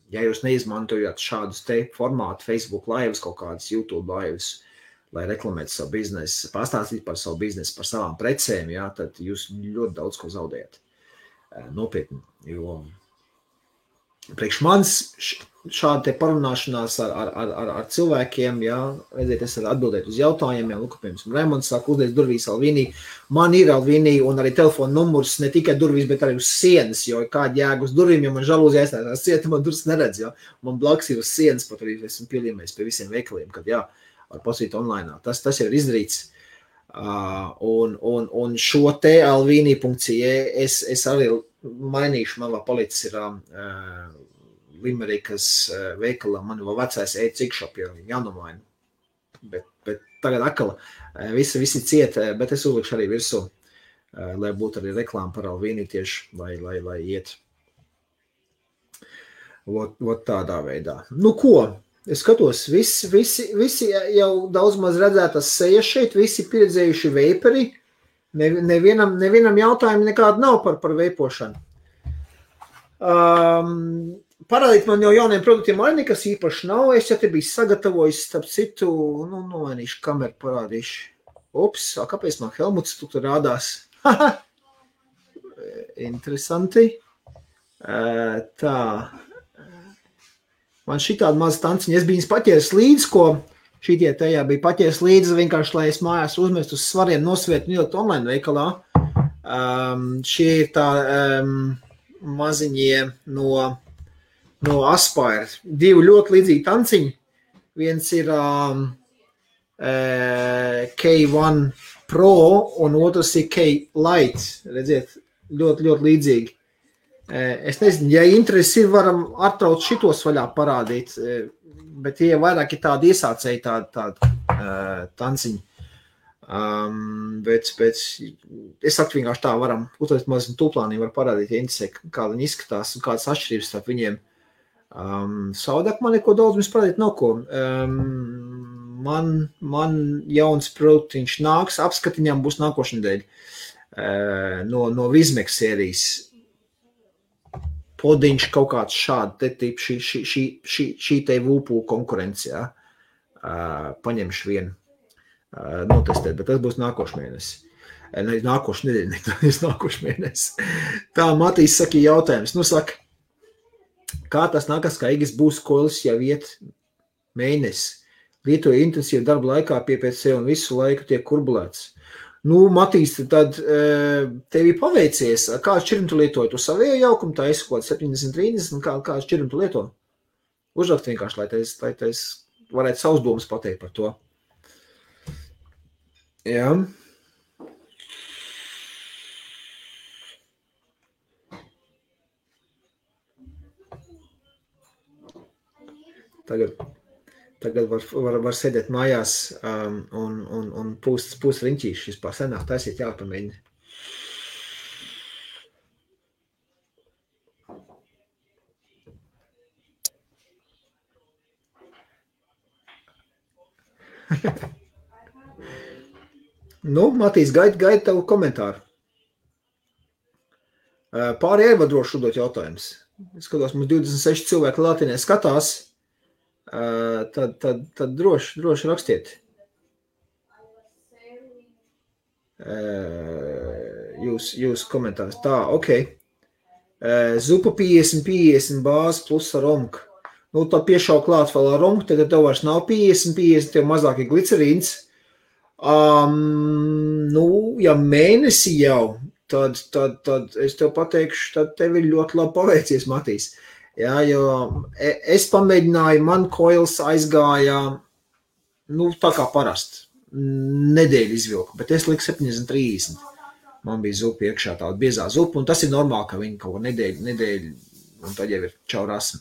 ja jūs neizmantojat šādus te formātu, Facebook laivas, kaut kādas YouTube laivas, lai reklamētu savu biznesu, pastāstīt par savu biznesu, par savām precēm, jā, tad jūs ļoti daudz ko zaudējat. Nopietni, jo priekš manis šāda te parunāšanās ar cilvēkiem, jā, redziet, es varu atbildēt uz jautājumiem, piemēram, Raimonds saka, uzliec durvīs Alvīnī, man ir Alvīnī un arī telefona numurs, ne tikai durvīs, bet arī uz sienas, jo kāda jēga uz durvīm, ja man žalūzi aizstājās cieta, man durvis neredz, jā, man blaks ir uz sienas, pat arī esmu pielīmējis pie visiem veikaliem, kad jā, var pasīt online. Tas ir izdarīts. Un šo te alvini.ie es arī mainīšu, man vēl palicis ir Limerikas veikalā, man vēl vecais e-cikšop jānomaina. Bet tagad akala visi ciet, bet es uzlikšu arī virsū, lai būtu arī reklāma par Alvini tieši, lai iet. Vot tādā veidā. Nu ko? Es skatos, visi jau daudz maz redzētas sejas šeit, visi pieredzējuši veiperi, nevienam jautājumu nekādu nav par veipošanu. Parādīt man jau jauniem produktiem arī nekas īpaši nav, es jau te biju sagatavojis, starp citu, nomainīšu kameru, parādīšu. Ups, kāpēc man Helmuts tu tur rādās? Interesanti. Tā. Man šitāda maza tanciņa, es biju paķēris līdzi, ko šitie tajā bija paķēris līdzi, vienkārši, lai es mājās uzmestu uz svariem nosvietu un ielikt online veikalā. Šie ir tā maziņie no Aspire. Divi ļoti līdzīgi tanciņi. Viens ir K1 Pro un otrs ir K-Lite. Redziet, ļoti līdzīgi. Es nezinu, ja interesi ir, varam attrauc šitos vaļā parādīt, bet tie vairāk ir tādi iesācēji, tādi tanciņi. Bet es saku vienkārši tā varam, uzlikt mazliet tūplānī var parādīt, ja interesē, kā viņi izskatās un kādas atšķirības starp viņiem. Savādāk man neko daudz mums parādīt nav ko. Man jauns produktiņš nāks, apskatiņām būs nākošnedēļ no Vizmex sērijas. Podiņš kaut kāds šādi, šī te vūpū konkurence, jā. Paņemšu vienu, notestēt, bet tas būs nākošu mēnesi. Nākošu nedēļu, nākošu mēnesi. Tā, Matīs saka jautājums. Nu, saka, kā tas nākas, kā Igis būs kolis jau iet mēnesi? Lietoja intensīvu darbu laikā pie PC un visu laiku tiek kurbulēts. Nu, Matīs, tad tev ir paveicies. Kādu šķirnu tu lietoji? Tu savējo jaukumu, tā esi kaut 70-30, kādu šķirnu tu lieto? Uzrakt vienkārši, lai tais varētu savus domas pateikt par to. Jā. Tagad var sēdēt mājās un pūst riņķīši. Vispār senāk taisīt jāpamēģina. Nu, Matīs, gaida tavu komentāru. Pāri ievadrošu dot jautājums. Es skatos, mums 26 cilvēki Latinē skatās, tad droši rakstiet. Jūs komentārus. Tā, ok. Zupa 50 bāzi plus ar romku. Nu, tad piešau klāt vēl ar romku, tad tev vairs nav 50, tev mazāk ir glicerīns. Nu, ja mēnesi jau, tad es tev pateikšu, tad tev ir ļoti labi paveicies, Matīs. Jā, jo es pamēģināju, man koils aizgāja, nu, tā kā parasti, nedēļu izvilku, bet es liku 70-30. Man bija zupa iekšā, tāda biezā zupa, un tas ir normāli, ka viņi kaut ko nedēļu, un tad jau ir čau rasmi.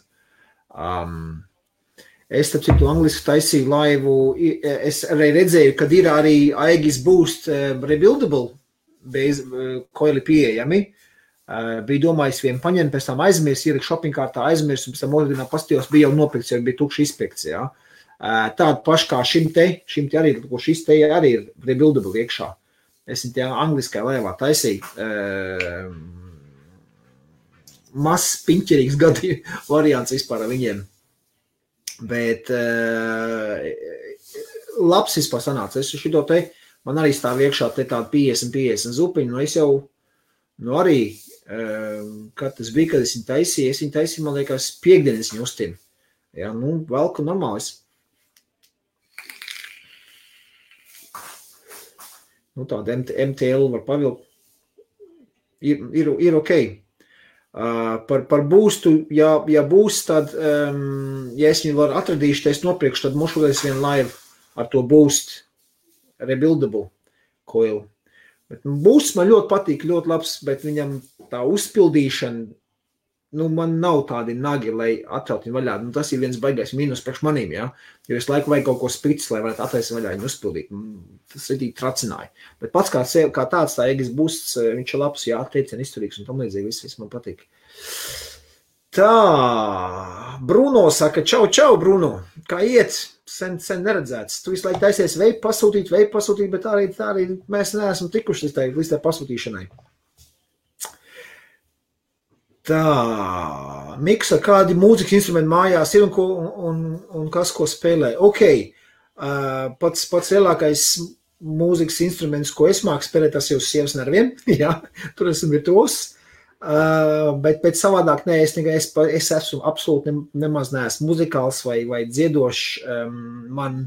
Es, starp citu, angliski taisīju laivu, es arī redzēju, kad ir arī Aegis Boost rebuildable koili pieejami. Bija domājis vienu paņemt, pēc tam aizmirs, ielikt shopping kārtā aizmirs, un pēc tam otrdienā pastījos bija jau nopirkts, jo bija tukši izpirkts, jā. Tādu pašu kā šim te arī, ko šis te arī ir rebuildable iekšā. Es viņu tajā angliskajā laivā taisīju. Mazs, piņķerīgs gadu variants vispār ar viņiem. Bet labs vispār sanāca. Es šito te, man arī stāv iekšā te tāda 50 zupiņu, nu es jau, nu arī, kad tas bija, kad es viņu taisīju, man liekas, piekdienas viņu uztinu. Jā, nu, velku normālis. Nu, tāda MTL var pavilkt. Ir ok. Par boostu, ja būs, tad, ja es viņu varu atradīšu, tad es nopirkšu, tad mošulēs vienu laivu ar to boost rebuildable coil. Bet boosts man ļoti patīk, ļoti labs, bet viņam tā uzpildīšana, nu, man nav tādi nagi, lai atcelt viņu vaļā. Nu, tas ir viens baigais mīnus priekš manīm, jā. Jo es laiku vajag kaut ko spricis, lai varētu attaisīt vaļā viņu uzpildīt. Tas ir tracināja. Bet pats kā tāds tā Aegis Boosts, viņš ir labs, jā, teicien izturīgs un tam līdzīgi, viss man patīk. Tā, Bruno saka, čau, Bruno, kā iet? Sen neredzēts. Tu visu laiku taisies veipu pasūtīt, bet tā arī mēs neesam tikuši līdz tā pasūtīšanai. Tā, Miksa, kādi mūzikas instrumenti mājās ir un kas, ko spēlē? Ok, pats lielākais mūzikas instruments, ko es māku spēlēt, tas jau sievas nerviem, jā, tur esmu virtuos, bet savādāk nē, es esmu absolūti nemaz neesmu muzikāls vai dziedošs, man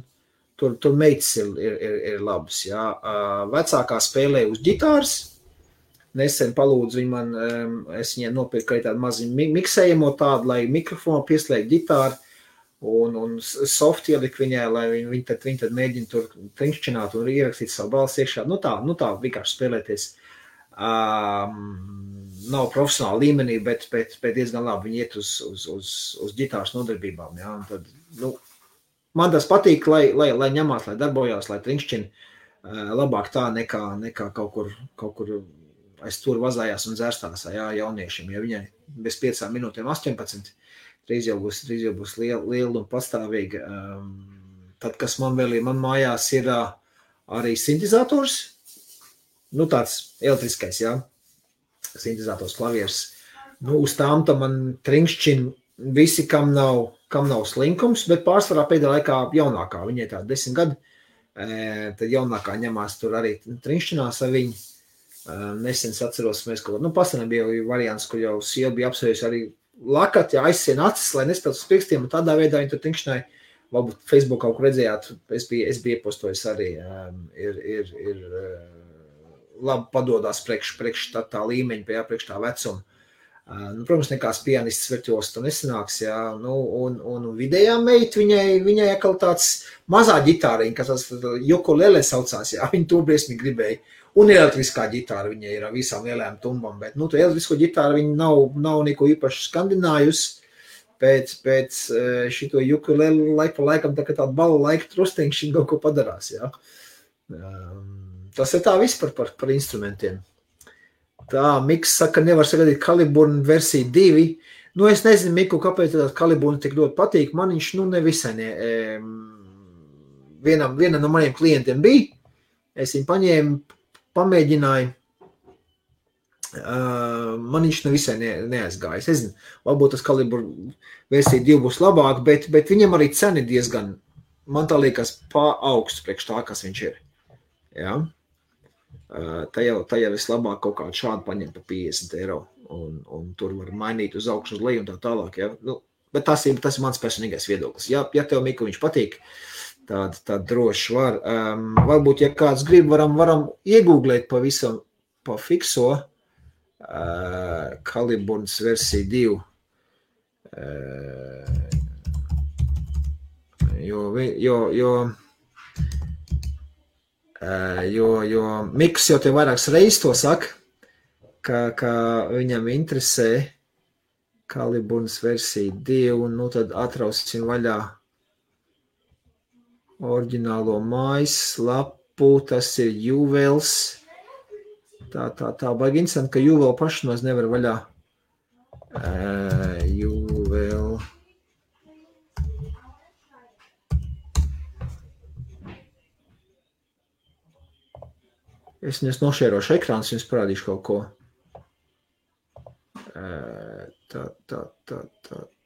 tur meitas ir labas, jā, vecākā spēlē uz ģitāras, nesen palūdzu viņu man, es viņai nopirku arī tādu maziņu miksējamo tādu, lai mikrofonu pieslēgt ģitāru un soft ielikt viņai, lai viņi tad mēģina tur trinkšķināt un ierakstīt savu balsi iekšā. Nu tā vienkārši spēlēties. Nav profesionāla līmenī, bet diezgan labi viņi iet uz ģitāras nodarbībām. Ja? Un tad, nu, man tas patīk, lai ņemās, lai darbojās, lai trinkšķina labāk tā nekā kaut kur aiz tur vazājās un dzērstās, jā, jauniešiem, ja viņai bez 5 minūtēm 18, drīz jau būs liela un pastāvīga. Tad, kas man vēl ir, man mājās ir arī sintezators, nu tāds elektriskais, jā, sintezators klavieris. Nu, uz tām tam man trinkšķina visi, kam nav slinkums, bet pārsvarā pēdējā laikā jaunākā, viņai tā 10 gadi, tad jaunākā ņemās tur arī trinkšķinās ar viņu. Nesen atceros, mēs kaut ko, pasenē bija variants, kur jau sieva bija apsvējusi arī lakat, ja aizsien acis, lai nespēlētu uz pirkstiem, un tādā veidā viņi tur trinkšķināja, varbūt Facebook kaut kur redzējāt, es biju iepostojis arī, ir labi padodās priekš tā līmeņa, priekš tā vecuma. Nu, protams, nekāds pianists virtuos tur nesanāks, jā, nu, un vidējā meita, viņai atkal tāds mazā ģitāriņa, kas tas ukulele saucās, jā, viņa to briesmīgi gribēja. Un elektriskā ģitāra viņai ir ar visām lielajām tumbām, bet, nu, to elektrisko ģitāru viņa nav neko īpaši skandinājusi pēc šito ukulele laiku pa laikam, tā kā tāda bala laika trustiņš viņa kaut ko padarās, jā. Tas ir tā viss par instrumentiem. Tā, Miks saka, nevar sagadīt Kaliburnu versiju 2. Nu, es nezinu, Miku, kāpēc tā Kaliburna tik ļoti patīk. Man viņš, nu, nevisai vienam no maniem klientiem bija. Es viņu paņēmu, pamēģināju. Man viņš nevisai neaizgājis. Es zinu, varbūt tas kalibru versija 2 būs labāk, bet viņam arī cena diezgan, man tā liekas, augsts priekš tā, kas viņš ir. Ja? Tā jau vislabāk kaut kādu šādu paņem pa 50 eiro, un tur var mainīt uz augšu, uz leju un tā tālāk. Ja? Nu, bet tas ir mans personīgais viedoklis. Ja tev, Mika, viņš patīk, tad droši var. Varbūt, ja kāds grib, varam iegūglēt pavisam pa fikso, Kaliburnas versija 2, jo Miks jau te vairākas reizes to saka, ka viņam interesē Kaliburnas versija 2, un nu tad atrausim vaļā oriģinālo mājaslapu, tas ir Juvels. Tā baigi interesanti, ka Juvel paši maz nevar vaļā. Juvel. Es nošērošu ekrāns, jums parādīšu kaut ko.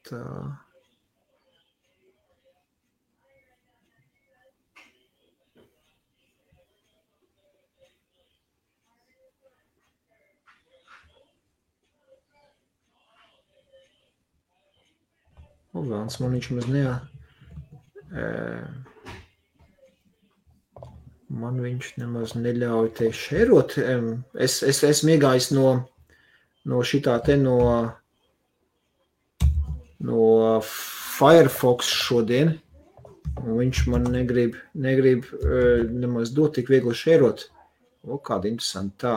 Tā. Velns man viņš maz man viņš nemaz neļauj te šerot. Es esmu iegājis no šitā te no Firefox šodien, un viņš man negrib nemaz dot tik viegli šerot. O, kāda interesanta tā.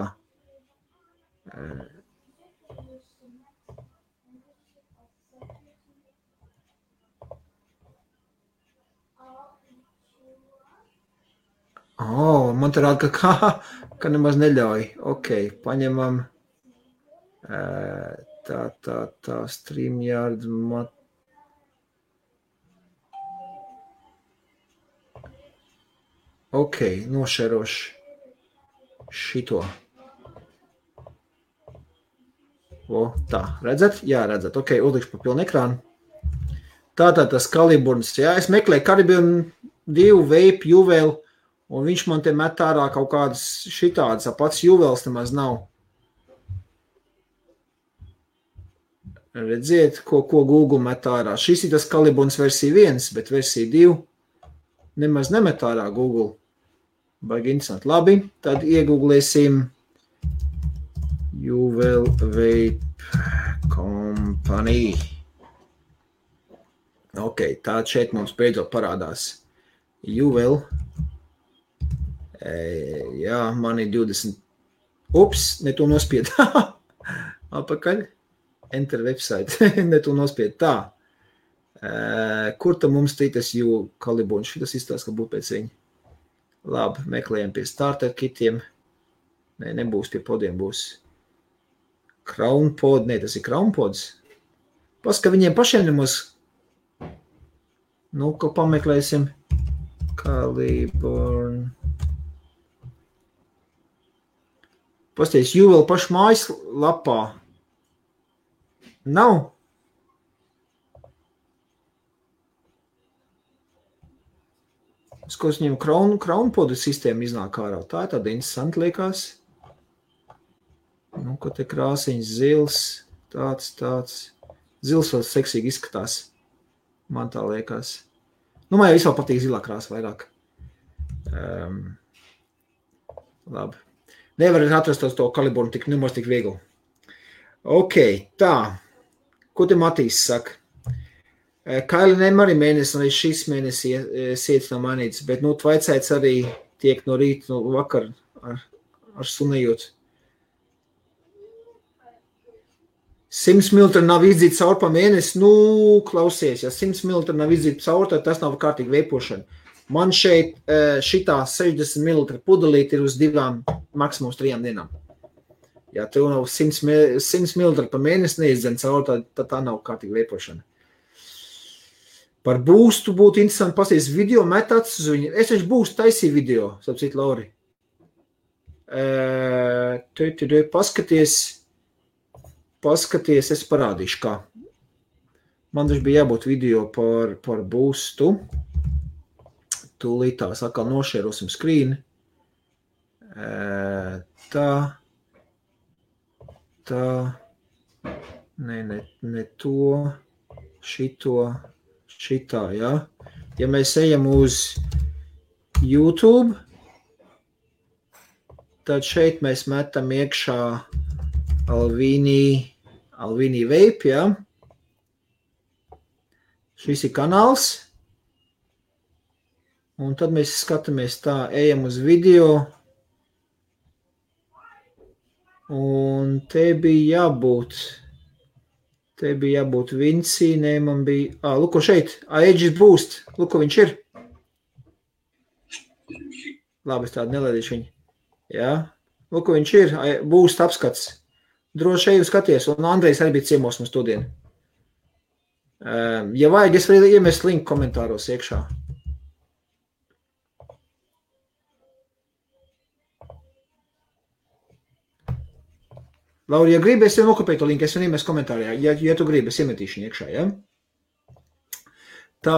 Man te rāda, ka nemaz neļauj. Ok, paņemam tā StreamYard Ok, nošerošu šito. Tā, redzat? Jā, redzat. Ok, uzlikšu pa pilnu ekrānu. Tātad tas Kaliburnas, jā, es meklēju Kaliburnu 2, Vape, Juvel, un viņš man te met ārā kaut kādas šitādas, pats Juvels nemaz nav. Redziet, ko Google met ārā. Šis ir tas Kaliburnas versija 1, bet versija 2 nemaz nemet ārā Google. Baigi interesanti. Labi, tad iegooglēsim Juvel Vape Company. Ok, tā šeit mums beidzot parādās. Juvel. Jā, man ir 20. Ups, ne to nospied. Apakaļ. Enter website. Ne to nospied. Tā. Kur tam mums tītas Kaliburns? Šitas izstāsta, ka būtu pēc viņa. Labi, meklējam pie starter kitiem. Nē, nebūs pie podiem, būs Crown pod. Nē, tas ir Crown pods. Paska viņiem pašiem nemaz. Nu, ko pameklēsim. Kaliburn. Pasties, Juvel pašu mājas lapā. Nav. Skos viņam Crown podu sistēma iznāk ārā. Tā ir tāda interesanti liekas. Nu, ko te krāsiņš zils. Tāds. Zils vēl seksīgi izskatās. Man tā liekas. Nu, man jau vispār patīk zilā krāsa vairāk. Labi. Nevar atrast to Kaliburnu nemaz tik viegli. Ok, tā. Ko te Matīs saka? Kailinēm arī mēnesi, arī šis mēnesis sietas nav mainīts, bet, tvaicēts arī tiek no rīta, no vakar ar sunējot. 100 ml nav izdzīta caur pa mēnesi, klausies, ja 100 ml nav izdzīta caur, tad tas nav kārtīgi veipošana. Man šeit šitā 60 ml pudelīt ir uz 2, maksimums 3 dienām. Ja tev nav 100 ml pa mēnesi neizdzen caur, tad tā nav kārtīgi veipošana. Par boostu būtu interesanti pasties video metāts uz viņu. Es taču boostu taisīju video, sapcīt, Lauri. Paskaties. paskaties, es parādīšu, kā. Man taču bija jābūt video par boostu. Tūlīt tās atkal nošērosim skrīni. Tā. Ne to, šitā, ja. Ja mēs ejam uz YouTube, tad šeit mēs metam iekšā Alvini Vape, ja. Šis ir kanāls. Un tad mēs skatāmies tā, ejam uz video. Un te bija jābūt Vinci, ne, man bija, luko šeit, Aegis Boost, luko viņš ir. Labi, es tādu nelaidīšu viņu. Jā, luko viņš ir, Boost apskats. Droši ejam skaties, un Andrejs arī bija ciemos mums todien. Ja vajag, es varu iemest linku komentāros iekšā. Lauri, ja gribi, es jau nokopēju to linku, es jau iemest komentārā. Ja tu gribi, es iemetīšu viņu iekšā, ja? Tā,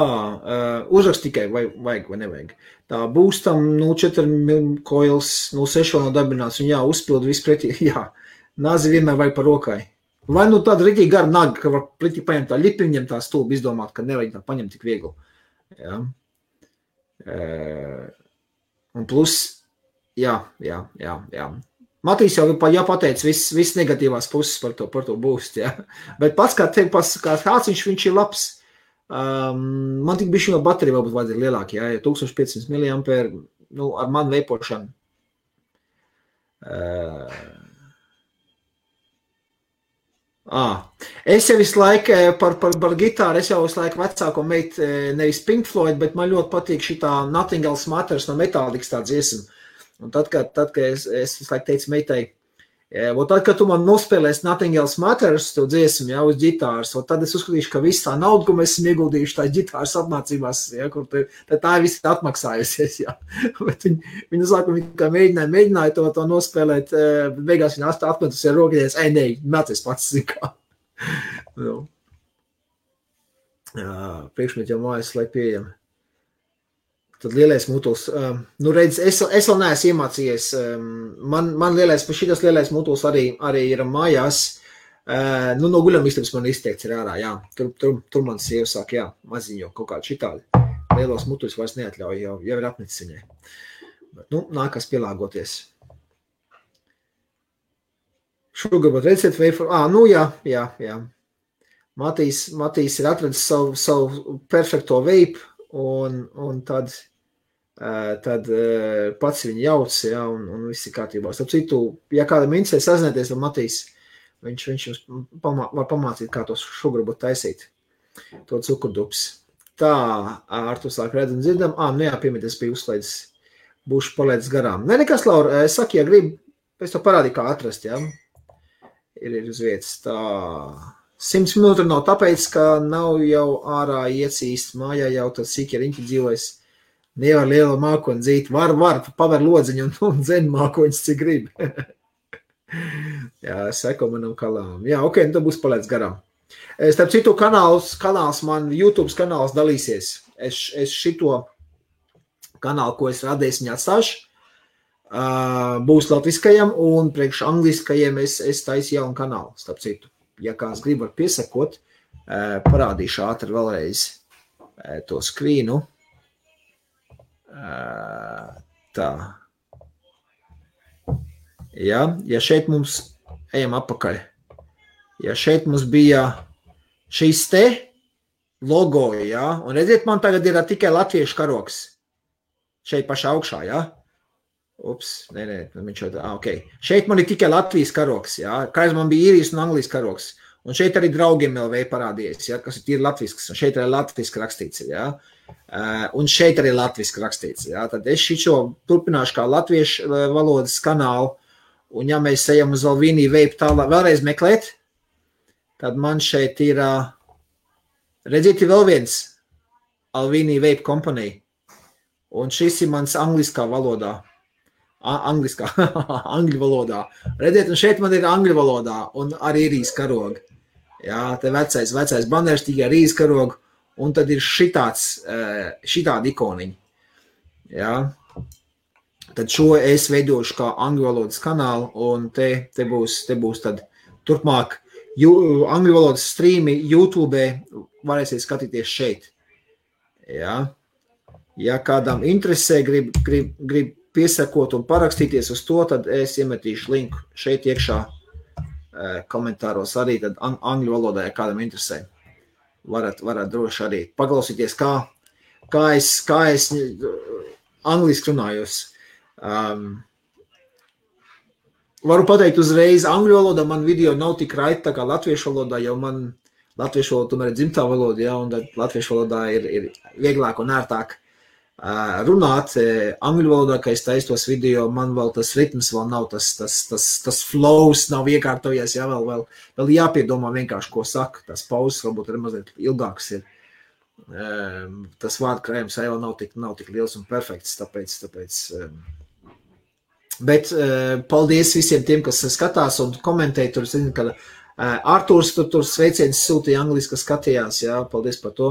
uzrakst tikai, vai vajag vai nevajag. Tā, Boostam 0,4 coils, 0,6 vēl nav dabināts, un jā, uzpild visu pretī, jā. Nazi vienmēr vajag par rokai. Vai nu tāda rītīgi gara naga, ka var pretī paņemt tā lipi, viņam tā stulbi izdomāt, ka nevajag tā paņemt tik viegli. Jā. Un plus, jā. Matīs jau pateica viss negatīvās puses par to boost, ja. Bet pats kā kāds viņš ir labs. Man tik bišķi no baterija vēl būtu vajadzīgi lielāki, ja 1500 mAh, nu, ar manu veipošanu. Es jau visu laiku par gitāru, es jau visu laiku vecāko meitu, nevis Pink Floyd, bet man ļoti patīk šitā Nothing Else Matters no Metallikas tā dziesma. Un tad, kad es visu laiku teicu meitai, tad, kad tu man nospēlēsi Nothing Else Matters, to dziesmu, ja, uz ģitāras, tad es uzskatīšu, ka viss tā nauda, ko mēs esam ieguldījuši tā ģitāras apmācībās, ja, kur tā ir viss atmaksājusies, ja. Bet viņa saka, ka mēģināja to nospēlēt, bet beigās viņa atmetus ar rokies, nē, mēties pats, zikā. Nu. Priekšmet jau mājas, lai pieejami. Tad lielais mutuls, nu redz, es vēl neesmu iemācījies, man šitas lielais mutuls arī ir mājās, nu no guļamistabas man izteikts ir ārā, jā, tur man sieva sāk, jā, maziņo kaut kādu šitādi, lielos mutuļus vairs neatļauj, jau ir apnicis viņai, bet, nu, nākas pielāgoties. Sugarbutt recept wafer, nu jā, Matīs ir atradis savu perfekto vape, un tad pats viņu jauc, ja, un viss ir kārtībā. Starp citu, ja kādam interesē sazināties ar Matīs, viņš jums var pamācīt, kā to sugarbutt taisīt, to cukurdups. Tā, Artur sāk redz un dzirdam, nu jā, piemēties bija uzslēdzis, būšu palaidis garām. Nē, nekas, Laura, saki, ja gribi, pēc to parādīju, kā atrast, ja, ir uz vietas, tā... 100 minūte nav tāpēc, ka nav jau ārā iecīst mājā jau tad sīkie riņķi dzīvojas. Nevar liela mākoņa dzīt. Var, paver lodziņu un dzen mākoņas, cik grib. Jā, seko manam kalām. Jā, ok, tad būs palēdz garām. Starp citu kanāls man, YouTube kanāls dalīsies. Es šito kanālu, ko es radīju, viņu atstāšu. Būs latviskajam un priekš angliskajiem es taisu jaunu kanālu, starp citu. Ja kāds grib var piesakot, parādīšu ātri vēlreiz to skrīnu. Tā. Ja šeit mums, ejam apakaļ, ja šeit mums bija šīs te logo, ja, un redziet, man tagad ir tikai latviešu karoks. Šeit pašā augšā, ja. Ups, nē, viņš jau, ok. Šeit man ir tikai Latvijas karoks, jā. Kaiz man bija īrijas un Anglijas karoks. Un šeit arī draugiem LV parādījies, jā, kas ir tīri latvisks. Un šeit arī latviski rakstīts, jā. Un šeit arī latviski rakstīts, jā. Tad es šičo turpināšu kā latviešu valodas kanālu. Un ja mēs ejam uz Alvini Vape tālāk vēlreiz meklēt, tad man šeit ir, redziet, vēl viens Alvini Vape Company. Un šis ir mans angliskā valodā. angliskā, angļu valodā. Redziet, un šeit man ir angļu valodā, un arī rīs karogi. Jā, te vecais banērs tikai rīs karogu, un tad ir šitādi ikoniņi. Jā. Tad šo es veidošu kā angļu valodas kanālu, un te būs tad turpmāk angļu valodas streami YouTube varēsiet skatīties šeit. Jā. Ja kādam interesē, grib piesakot un parakstīties uz to, tad es iemetīšu linku šeit iekšā komentāros arī, tad angļu valodā, ja kādam interesē. Varat droši arī paklausīties, kā es angliski runājos. Varu pateikt uzreiz, angļu valodā man video nav tik raiti, tā kā latviešu valodā, jo man latviešu valoda tomēr ir dzimtā valoda, ja, un tad latviešu valodā ir vieglāk un ērtāk runāt. Angļu valodā, ka es taisu tos video, man vēl tas ritms vēl nav, tas flows nav iekārtojies, ja, vēl jāpiedomā vienkārši, ko saka, tas pauzes varbūt ir mazliet ilgāks ir. Tas vārdkrājums vēl nav tik liels un perfekts, tāpēc bet paldies visiem tiem, kas skatās un komentē, tur zinu, ka Artūrs tur sveiciens sūtīja angliski, kas skatījās, jā, paldies par to,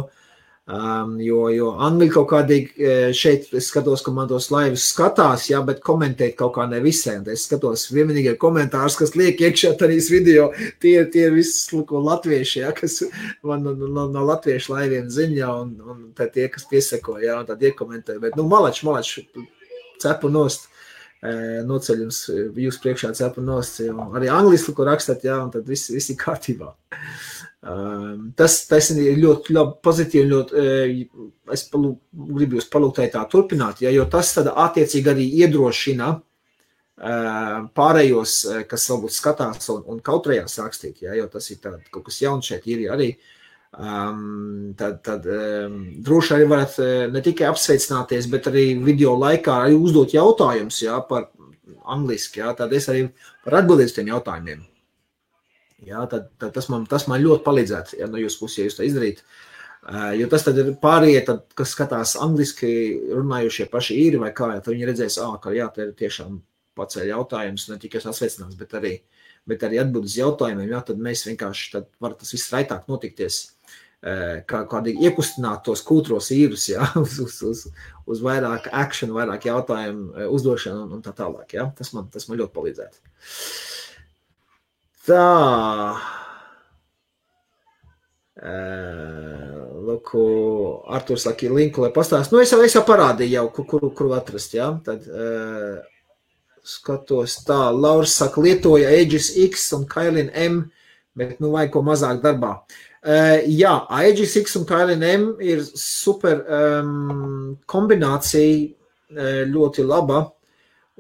jo angļi kaut kādīgi šeit, es skatos, ka man tos laivus skatās, jā, bet komentēt kaut kā ne visiem, es skatos vienīgi komentārus, kas liek iekšā tādīs video, tie viss latvieši, jā, kas man no latviešu laiviem ziņā, un tie, kas piesako, jā, un tad iekomentē, bet, malač, cepu nost, noceļ jums jūs priekšā cepu nost, jo arī angliski, ko rakstat, jā, un tad viss ir kārtībā. Tas ir ļoti pozitīvi, es gribu jūs palūgt tā turpināt, ja, jo tas tad attiecīgi arī iedrošina pārējos, kas varbūt skatās un kautrējās rakstīt, ja, jo tas ir kaut kas jauns šeit ir arī. Tad droši arī varat ne tikai apsveicināties, bet arī video laikā arī uzdot jautājumus, jā, par angliski, jā, tad es arī var atbildēt uz tiem jautājumiem. Jā, tad tas man ļoti palīdzētu, ja no jūsu puses, ja jūs tā izdarīt, jo tas tad ir pārējie, kas skatās angliski runājušie paši īri vai kā, tad viņi redzēs, ka jā, te ir tiešām paceļ jautājums, ne tikai sasveicinās, bet arī atbild uz jautājumiem, jā, tad mēs vienkārši, tad var tas viss raitāk notikties, kādīgi iekustināt tos kūtros īrus, jā, uz vairāk action, vairāk jautājumu uzdošanu un tā tālāk, jā, tas man ļoti palīdzētu. Tā, lūku, Arturs saka linku, lai pastāst, es jau parādīju jau, kuru atrast, jā, tad skatos tā, Lauris saka, lietoja Aegis X un Kailin M, bet vajag ko mazāk darbā. Jā, Aegis X un Kailin M ir super kombinācija, ļoti laba,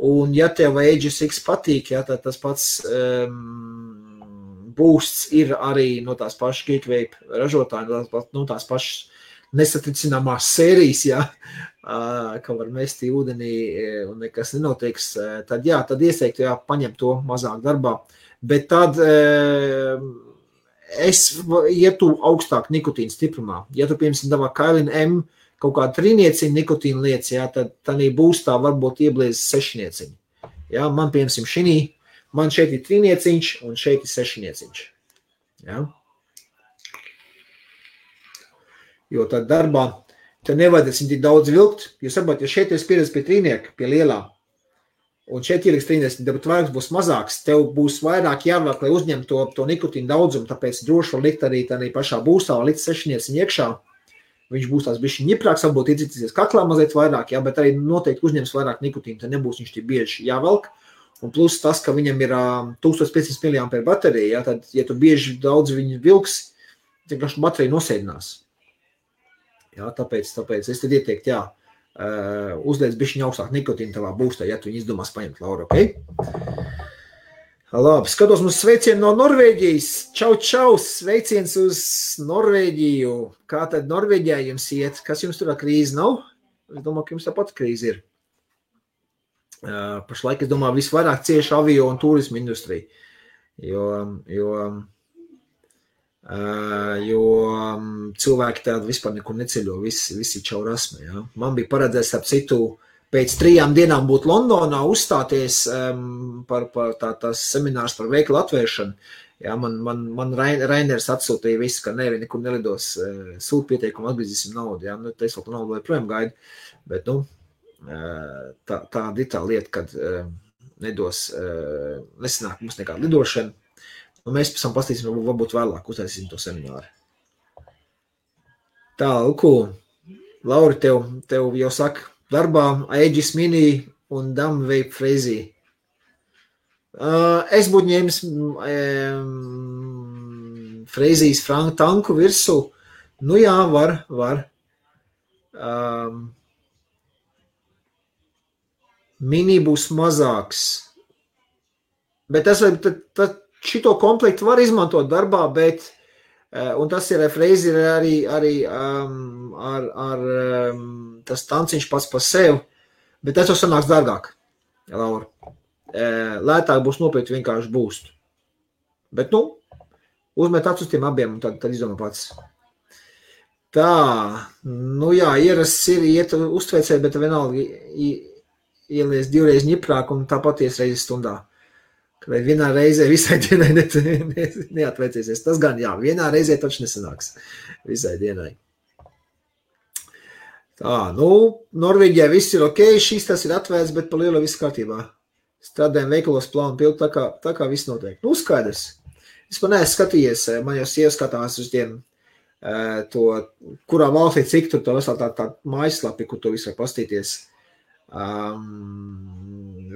un ja tev Aegis X patīk, jā, tad tas pats boosts ir arī no tās pašas Geekvape ražotāji, no tās pašas nesatricināmās sērijas, jā, ka var mest ūdenī un nekas nenotiks, tad jā, tad ieteiktu, jā, paņem to mazāk darbā, bet tad es ietu augstāk nikotīna stiprumā. Ja tu, piemēram, davā Kailin M kaut kādu 3 nikotīna lietas, jā, tad tādī boostā varbūt iebliez 6. Jā, man, piemēram, man šeit ir 3 un šeit ir 6. Jā. Jo tad darbā te nevajadzēs tik daudz vilkt, jo saprot, ja šeit ir pieredze pie 3, pie lielā, un šeit ieliks 30, bet vairāks būs mazāks, tev būs vairāk jāvelk, lai uzņemtu to nikotīnu daudzumu, tāpēc droši var likt arī tādā pašā būstā, likt 6 iekšā, viņš būs tās bišķi ņiprāks, varbūt iedzicīsies kaklā mazliet vairāk, jā, bet arī noteikti uzņems vairāk nikotīnu, tad nebūs viņš tik bieži jāvelk, un plus tas, ka viņam ir 1500 mAh baterija, jā, tad, ja tu bieži daudz viņu vilks, tad baterija nosēdinās. Jā, tāpēc es tad ieteiktu, jā, uzliec bišķiņu augstāk nikotīnu tavā būstā, ja tu viņu izdomās paņemt, Laura, ok? Labi, skatos mums sveicienu no Norvēģijas. Čau, sveiciens uz Norvēģiju. Kā tad Norvēģijā jums iet? Kas jums tur krīze nav? Es domāju, ka jums tāpat krīze ir. Pašlaik, es domāju, visvairāk cieši avio un turismu industrija, jo cilvēki tādi vispār nekur neceļo, visi čau rasme, jā. Man bija paredzēts ap citu pēc 3 dienām būt Londonā, uzstāties par tās seminārs par veikalu atvēršanu. Jā, man Rainers atsūtīja visu, ka nevi nekur nelidos, sūt pieteikumu, atgriezīsim naudu. Jā, nu, es vēl naudu joprojām gaidu, bet, nu, tāda ir tā lieta, kad nesanāk mums nekāda lidošana. Un mēs pēc tam pastīsim, varbūt vēlāk uztaisīsim to semināru. Tā, Luku, Lauri, tev jau saka, darbā Aegis Mini un Dumb Vape Freezy. Es būtu ņēmis Freezijas franku tanku virsū. Nu jā, var. Mini būs mazāks. Bet šito komplektu var izmantot darbā, bet, un tas ir Freezy arī ar tas tanciņš pats par sevi, bet tas jau sanāks dārgāk, Laura. Lētāk būs nopirkt vienkārši būstu. Bet, nu, uzmet acis uz tiem abiem un tad izdomā pats. Tā, nu jā, ierasts ir iet uztveicēji, bet vienalga ielies 2 reizes ņiprāk un tāpat ies reizes stundā. Kad vienā reizē visai dienai neatveicēsies. Tas gan jā, vienā reizē taču nesanāks visai dienai. Tā, nu, Norvēģijā viss ir ok, šis tas ir atvērts, bet pa lielu viss kārtībā. Strādājam veikalos plānu pildu, tā kā viss notiek. Nu, skaidrs. Es man neesmu skatījies, man jau sieva skatās uz tiem, kurā valstī cik tur to vesel tā mājaslapi, kur to visu var pastīties.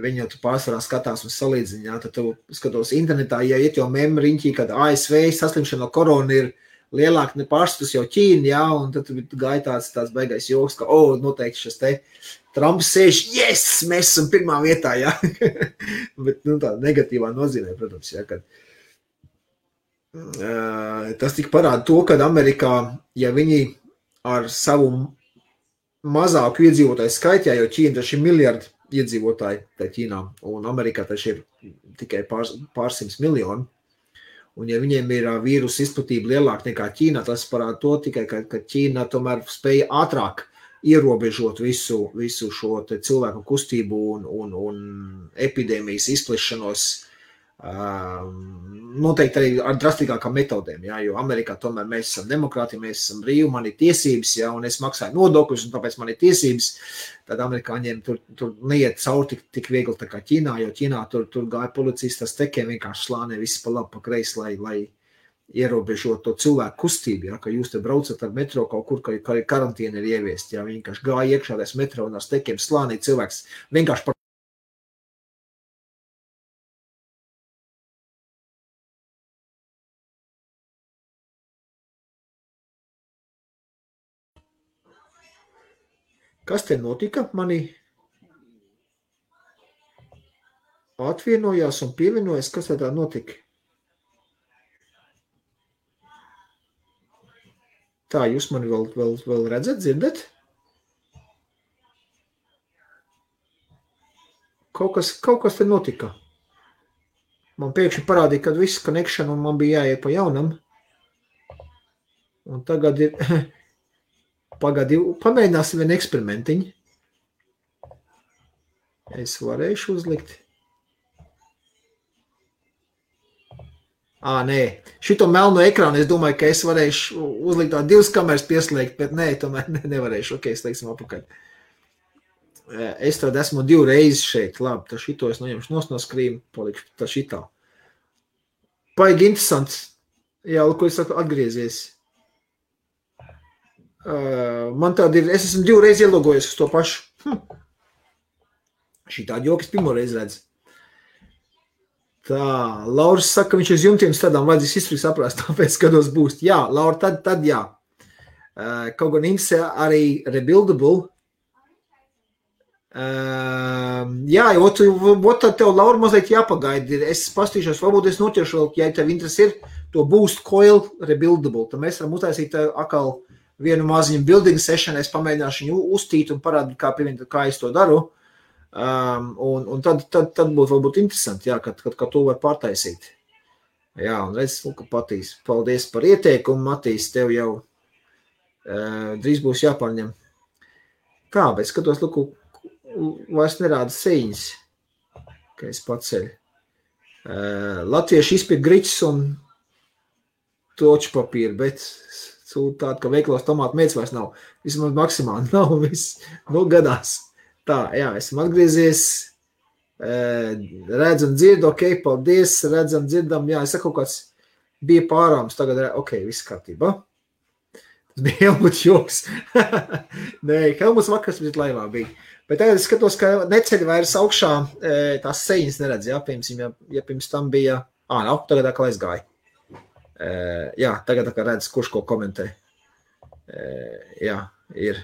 Viņi jau tu pārsvarā skatās un salīdziņā, tad tu skatos internetā, ja iet jau memriņķī, kad ASV saslimšana no korona ir lielāk nepārstus jau Ķīna, jā, un tad gāja tāds baigais joks, ka, noteikti šis te Trumps sēž, yes, mēs esam pirmā vietā, jā. Bet, nu, tā negatīvā nozīmē, protams, jā, kad tas tik parāda to, kad Amerikā, ja viņi ar savu mazāku iedzīvotāju skaitā, jo Ķīna taču ir miljardi iedzīvotāji tā Ķīnā, un Amerikā taču ir tikai pārsims miljoni, un ja viņiem ir vīrusu izplatība lielāka nekā Ķīnā, tas parāda to tikai, ka Ķīna tomēr spēja ātrāk ierobežot visu šo te cilvēku kustību un epidēmijas izplešanos, noteikti arī ar drastīgākām metodēm, jā, jo Amerikā tomēr mēs esam demokrāti, mēs esam brīvi, man ir tiesības, jā, un es maksāju nodokļus, un tāpēc man ir tiesības, tad amerikāņiem tur neiet cauri tik viegli tā kā Ķīnā, jo Ķīnā tur gāja policijas tas tekiem vienkārši slānē viss pa labi, pa kreisi, lai ierobežot to cilvēku kustību, ja, ka jūs te braucat ar metro kaut kur, ka karantīna ir ieviest, ja, viņi vienkārši gāja iekšādais metro un ar stekiem slānī cilvēks vienkārši par Kas te notika? Mani atvienojās un pievienojas, kas tā notika? Tā, jūs mani vēl redzat, dzirdat? Kaut kas te notika. Man pēkšņi parādīja, kad viss connection un man bija jāiet pa jaunam. Un tagad ir, pamēģināsim vienu eksperimentiņu. Es varēšu uzlikt. Nē, šito melno ekrānu es domāju, ka es varēšu uzlikt tā 2 kameras pieslēgt, bet nē, tomēr nevarēšu. Ok, slēgsim apakaļ. Es tad esmu 2 reizes šeit. Labi, tad šito es noņemšu no skrīma, palikšu tā šitā. Paigi interesants. Jā, ko es saku, atgriezies. Man tāda ir, es esmu 2 reizes ielogojies uz to pašu. Šitā jokas pirmo reizi redz. Tā, Lauris saka, ka viņš uz jumtiem stādām vajadzīs izturīgi saprast, tāpēc skatos būs. Jā, Laura, tad jā. Kaut gan interesē arī rebuildable. Jā, tad tev, Laura, mazliet jāpagaida. Es pastīšos, varbūt es noķeršu vēl, ja tev interesi ir, to boost coil rebuildable. Tad mēs varam uztaisīt atkal vienu maziņu building session, es pamēģināšu viņu uztīt un parādīt, kā es to daru. Un tad būtu varbūt interesanti, jā, kad to var pārtaisīt. Jā, un redz, ka Patīs, paldies par ieteikumu, Matīs, tev jau drīz būs jāpārņem. Tā, bet skatos, vairs nerāda sejas, ka es paceļu. Latvieši izpirk griķus un toču papīru, bet tāda, ka veikalos tomātu mērķis vairs nav. Vismaz maksimāli nav, gadās. Tā, jā, esam atgriezies, redzam, dzirdu, ok, paldies, redzam, dzirdam, jā, es saku, kaut kāds bija pārāms, tagad, ok, viss kārtībā. Tas bija Helmuts joks. Nē, Helmuts vakars bija laivā bija. Bet tagad es skatos, ka neceļ vairs augšā tās sejas neredz, jā, piemēram, ja pirms tam bija, nav, tagad atkal aizgāja. Jā, tagad atkal redz, kurš ko komentē. Jā, ir.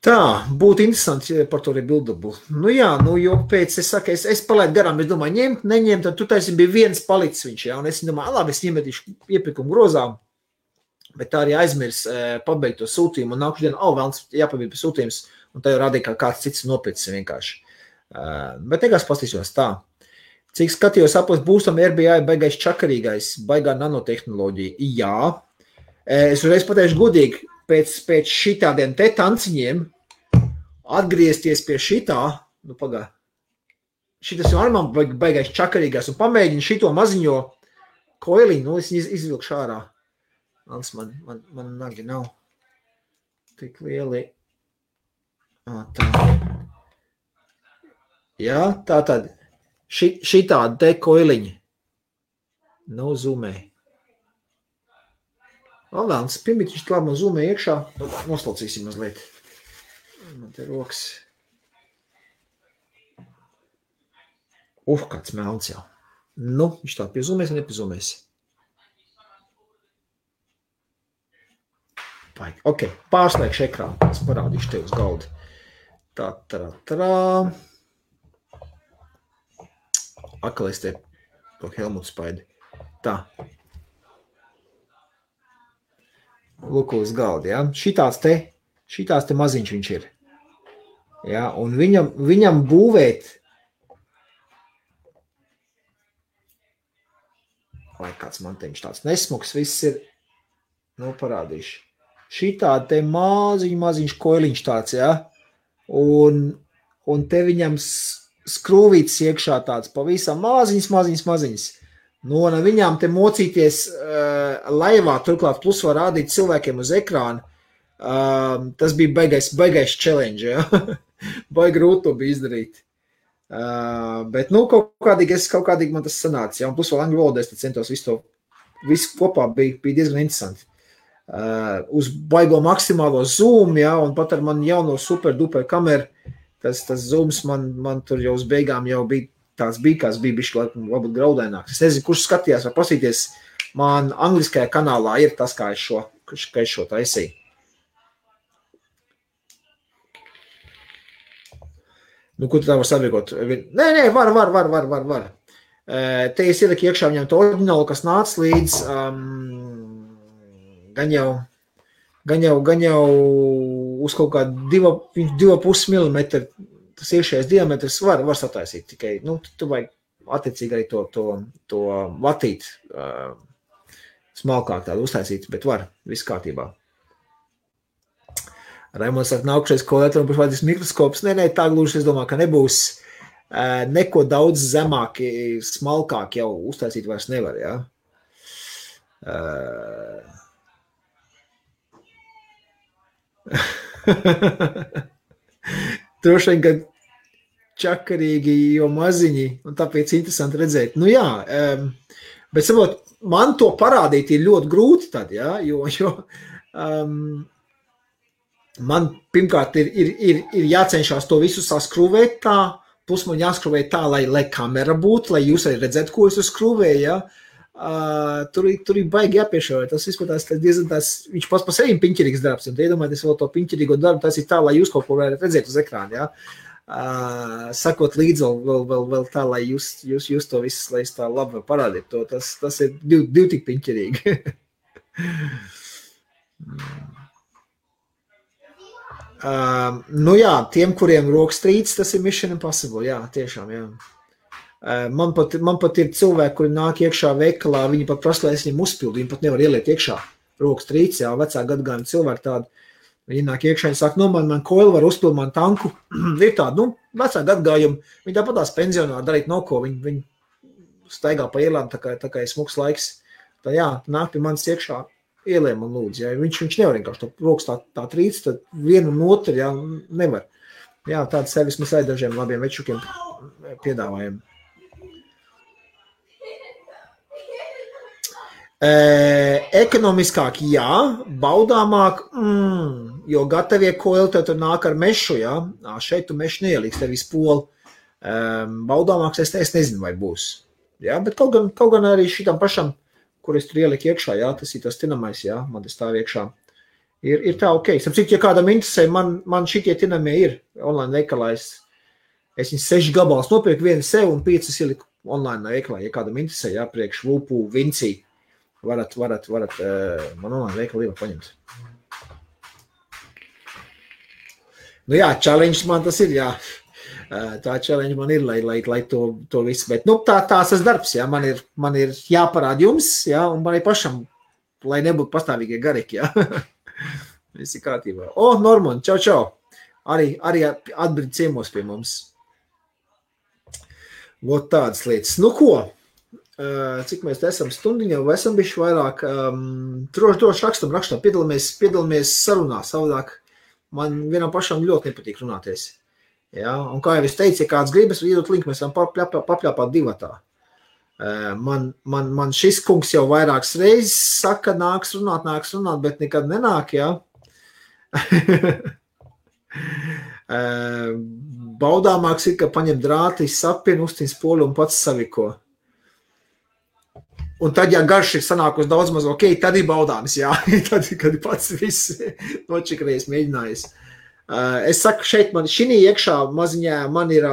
Tā, būtu interesanti par to rebuildabu. Nu jā, jo pēc, es saku, es palaidu garām, es domāju, ņemt, neņemt, tad tu taisi bija viens palicis viņš, jā, un es domāju, labi, es iemetīšu iepirkumu grozām, bet tā arī aizmirs pabeigt to sūtījumu, un nākuši dienu, vēlams jāpabeigt sūtījums, un tā jau rādīja, kā kāds cits nopircis vienkārši. Bet nekās pastīšos tā. Cik skatījos apos būstam RBI baigais čakarīgais, baigā nanotehnoloģija. Jā. Es uzreiz pateikšu godīgi, pēc šitādiem te tanciņiem atgriezties pie šitā, nu pagā, šitas jau arī man baigais čakarīgais, un pamēģinu šito maziņo koiliņu, nu es izvilkšu ārā. Man nagi nav tik lieli. Tā. Jā, tā tad šitādi te koiliņi. Nav zoomē. Vēlams, pirmītiņš klāt man zoomē iekšā. Noslaucīsim mazliet. Man te rokas. Kāds melns jau. Nu, viņš tā piezūmēs vai nepiezūmēs? Ok, pārslēgšu ekrānu. Es parādīšu tev uz galdu. Tā. Akal es te to Helmutu spaidi. Tā. Lūk uz galdu, jā. Šitās te maziņš viņš ir. Jā, un viņam būvēt, vai kāds man te viņš tāds nesmuks, viss ir, parādīšu. Šitā te maziņš koiliņš tāds, jā. Un te viņam skrūvīts iekšā tāds pavisam maziņas. Nu, un viņām te mocīties laivā, turklāt plus var rādīt cilvēkiem uz ekrānu. Tas bija baigais challenge, ja? Baigi grūti to bija izdarīt. Bet, kaut kādīgi man tas sanāca, ja? Un plus vēl angļu valodā es centos visu kopā bija diezgan interesanti. Uz baigo maksimālo zoom, ja, un pat ar man jauno super duper kameru, tas zooms man tur jau uz beigām jau bija kāds bija bišķi varbūt graudaināks. Es nezinu, kurš skatījās vai pasīties, man angliskajā kanālā ir tas, kā es šo taisīju. Nu, ko tu tā var saviekot? Nē, var. Te es ieliku iekšā viņam to oriģinālu, kas nāca līdz gan jau uz kaut kā 2,5 mm tas iekšējais diametrs var sataisīt tikai, tu vajag attiecīgi arī to vatīt smalkāk tādu uztaisīt, bet var, viss kārtībā. Raimonds saka, nākušais kolētram par vajadzīgs mikroskops. Nē, tā gluži, es domāju, ka nebūs neko daudz zemāk, smalkāk jau uztaisīt vairs nevar, jā. Droši vien, ka čakarīgi, jo maziņi, un tāpēc interesanti redzēt. Nu jā, bet saprot, man to parādīt ir ļoti grūti tad, jā, jo man pirmkārt ir jācenšās to visu saskrūvēt tā, plus man jāskrūvēt tā, lai kamera būtu, lai jūs arī redzētu, ko es skrūvēju, jā. Tur ir baigi jāpiešauj, tas vispār diezgan viņš pats par sevi piņķirīgs darbs, un iedomājieties vēl to piņķirīgo darbu, tas ir tā, lai jūs kaut ko varat redzēt uz ekrāna, jā. Sakot līdzi vēl tā, lai jūs to visu, lai es tā labi parādīt to, tas ir divi tik piņķirīgi. Nu jā, tiem, kuriem rokas trīc, tas ir Mission Impossible, jā, tiešām, jā. Man pat ir cilvēki, kuri nāk iekšā veikalā, viņi pat prasa, lai es viņiem uzpildu, viņi pat nevar ieliet iekšā rokas trīc, jā, vecā gadagājuma cilvēki tādi. Viņi nāk iekšā, viņi saka, man koili var uzpilt man tanku. Ir tādi, vecāki atgājumi. Viņi tāpat tās pensionāri darīt nav ko. Viņi staigā pa ielām, tā kā ir smuks laiks. Tā jā, nāk pie manis iekšā ieliem un lūdzu. Ja. Viņš nevar vienkārši to rokas tā trīc, tad vienu un otru, jā, nevar. Jā, tādu servis mēs arī dažiem labiem večukiem piedāvājam. Ekonomiskāk, jā, baudāmāk, jo gatavie koili tev tur nāk ar mešu, jā, šeit tu mešu neieliks, tev vispoli. Baudāmāks es nezinu, vai būs. Jā, bet kaut gan arī šitam pašam, kur es tur ieliku iekšā, jā, tas ir tas tinamais, jā, man tas stāv iekšā. Ir tā ok. Sapcīt, ja kādam interesē, man šitie tinamie ir online veikalā. Es viņus 6 gabalus nopirku, vienu sev un 5 ieliku online veikalā. Ja kādam interesē, jā, priekš Vupu, Vincī, varat man online veikalu var paņemt. Nu jā, challenge man tas ir, jā. Tā challenge man ir, lai to visu, bet, tās tas darbs, jā, man ir jāparāda jums, jā, un man ir pašam, lai nebūtu pastāvīgie garīgi, jā. Viss ir kārtībā. Norman, čau. Arī atbrīd ciemos pie mums. Vot tādas lietas. Nu ko? Cik mēs esam stundiņā, vai esam bišķi vairāk? Droši rakstam. Piedalāmies sarunā. Savādāk man vienam pašam ļoti nepatīk runāties. Ja? Un kā jau es teicu, ja kāds gribas, iedot linku, mēs varam papļāpāt divatā. Man šis kungs jau vairākas reizes saka, nāks runāt, bet nekad nenāk, jā. Baudāmāks ir, ka paņem drāti, sapien, uztīn spoli un pats saviko. Un tad, ja garš ir sanākus daudz maz, ok, tad ir baudāms, jā. Tad, kad pats viss nočikrējis, mēģinājis. Es saku, šeit šī iekšā maziņā man ir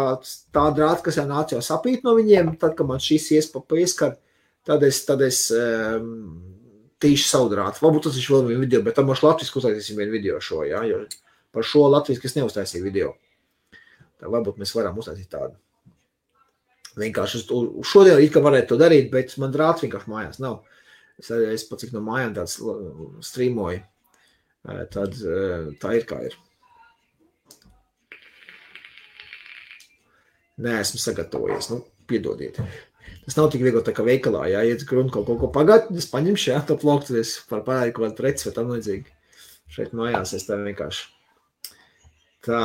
tā drāta, kas jau nāc jau sapīt no viņiem, tad, kad man šīs ieskar, tad es tīšu savu drātu. Varbūt tas ir vēl vienu video, bet tam mums latviski uztaisīsim vienu video šo, jā, jo par šo latviski es neuztaisīju video. Tā varbūt mēs varam uztaisīt tādu. Vienkārši šodien it kā varētu to darīt, bet man drāts vienkārši mājās nav. Es pat cik no mājām tāds streamoju, tad tā ir kā ir. Neesmu sagatavojies, piedodiet. Tas nav tik viegli tā kā veikalā, jā, ja runa kaut ko pagāt, es paņemšu, jā, to ploktu, es par parādi kaut kādu preci vai tam līdzīgi. Šeit mājās es tā vienkārši. Tā.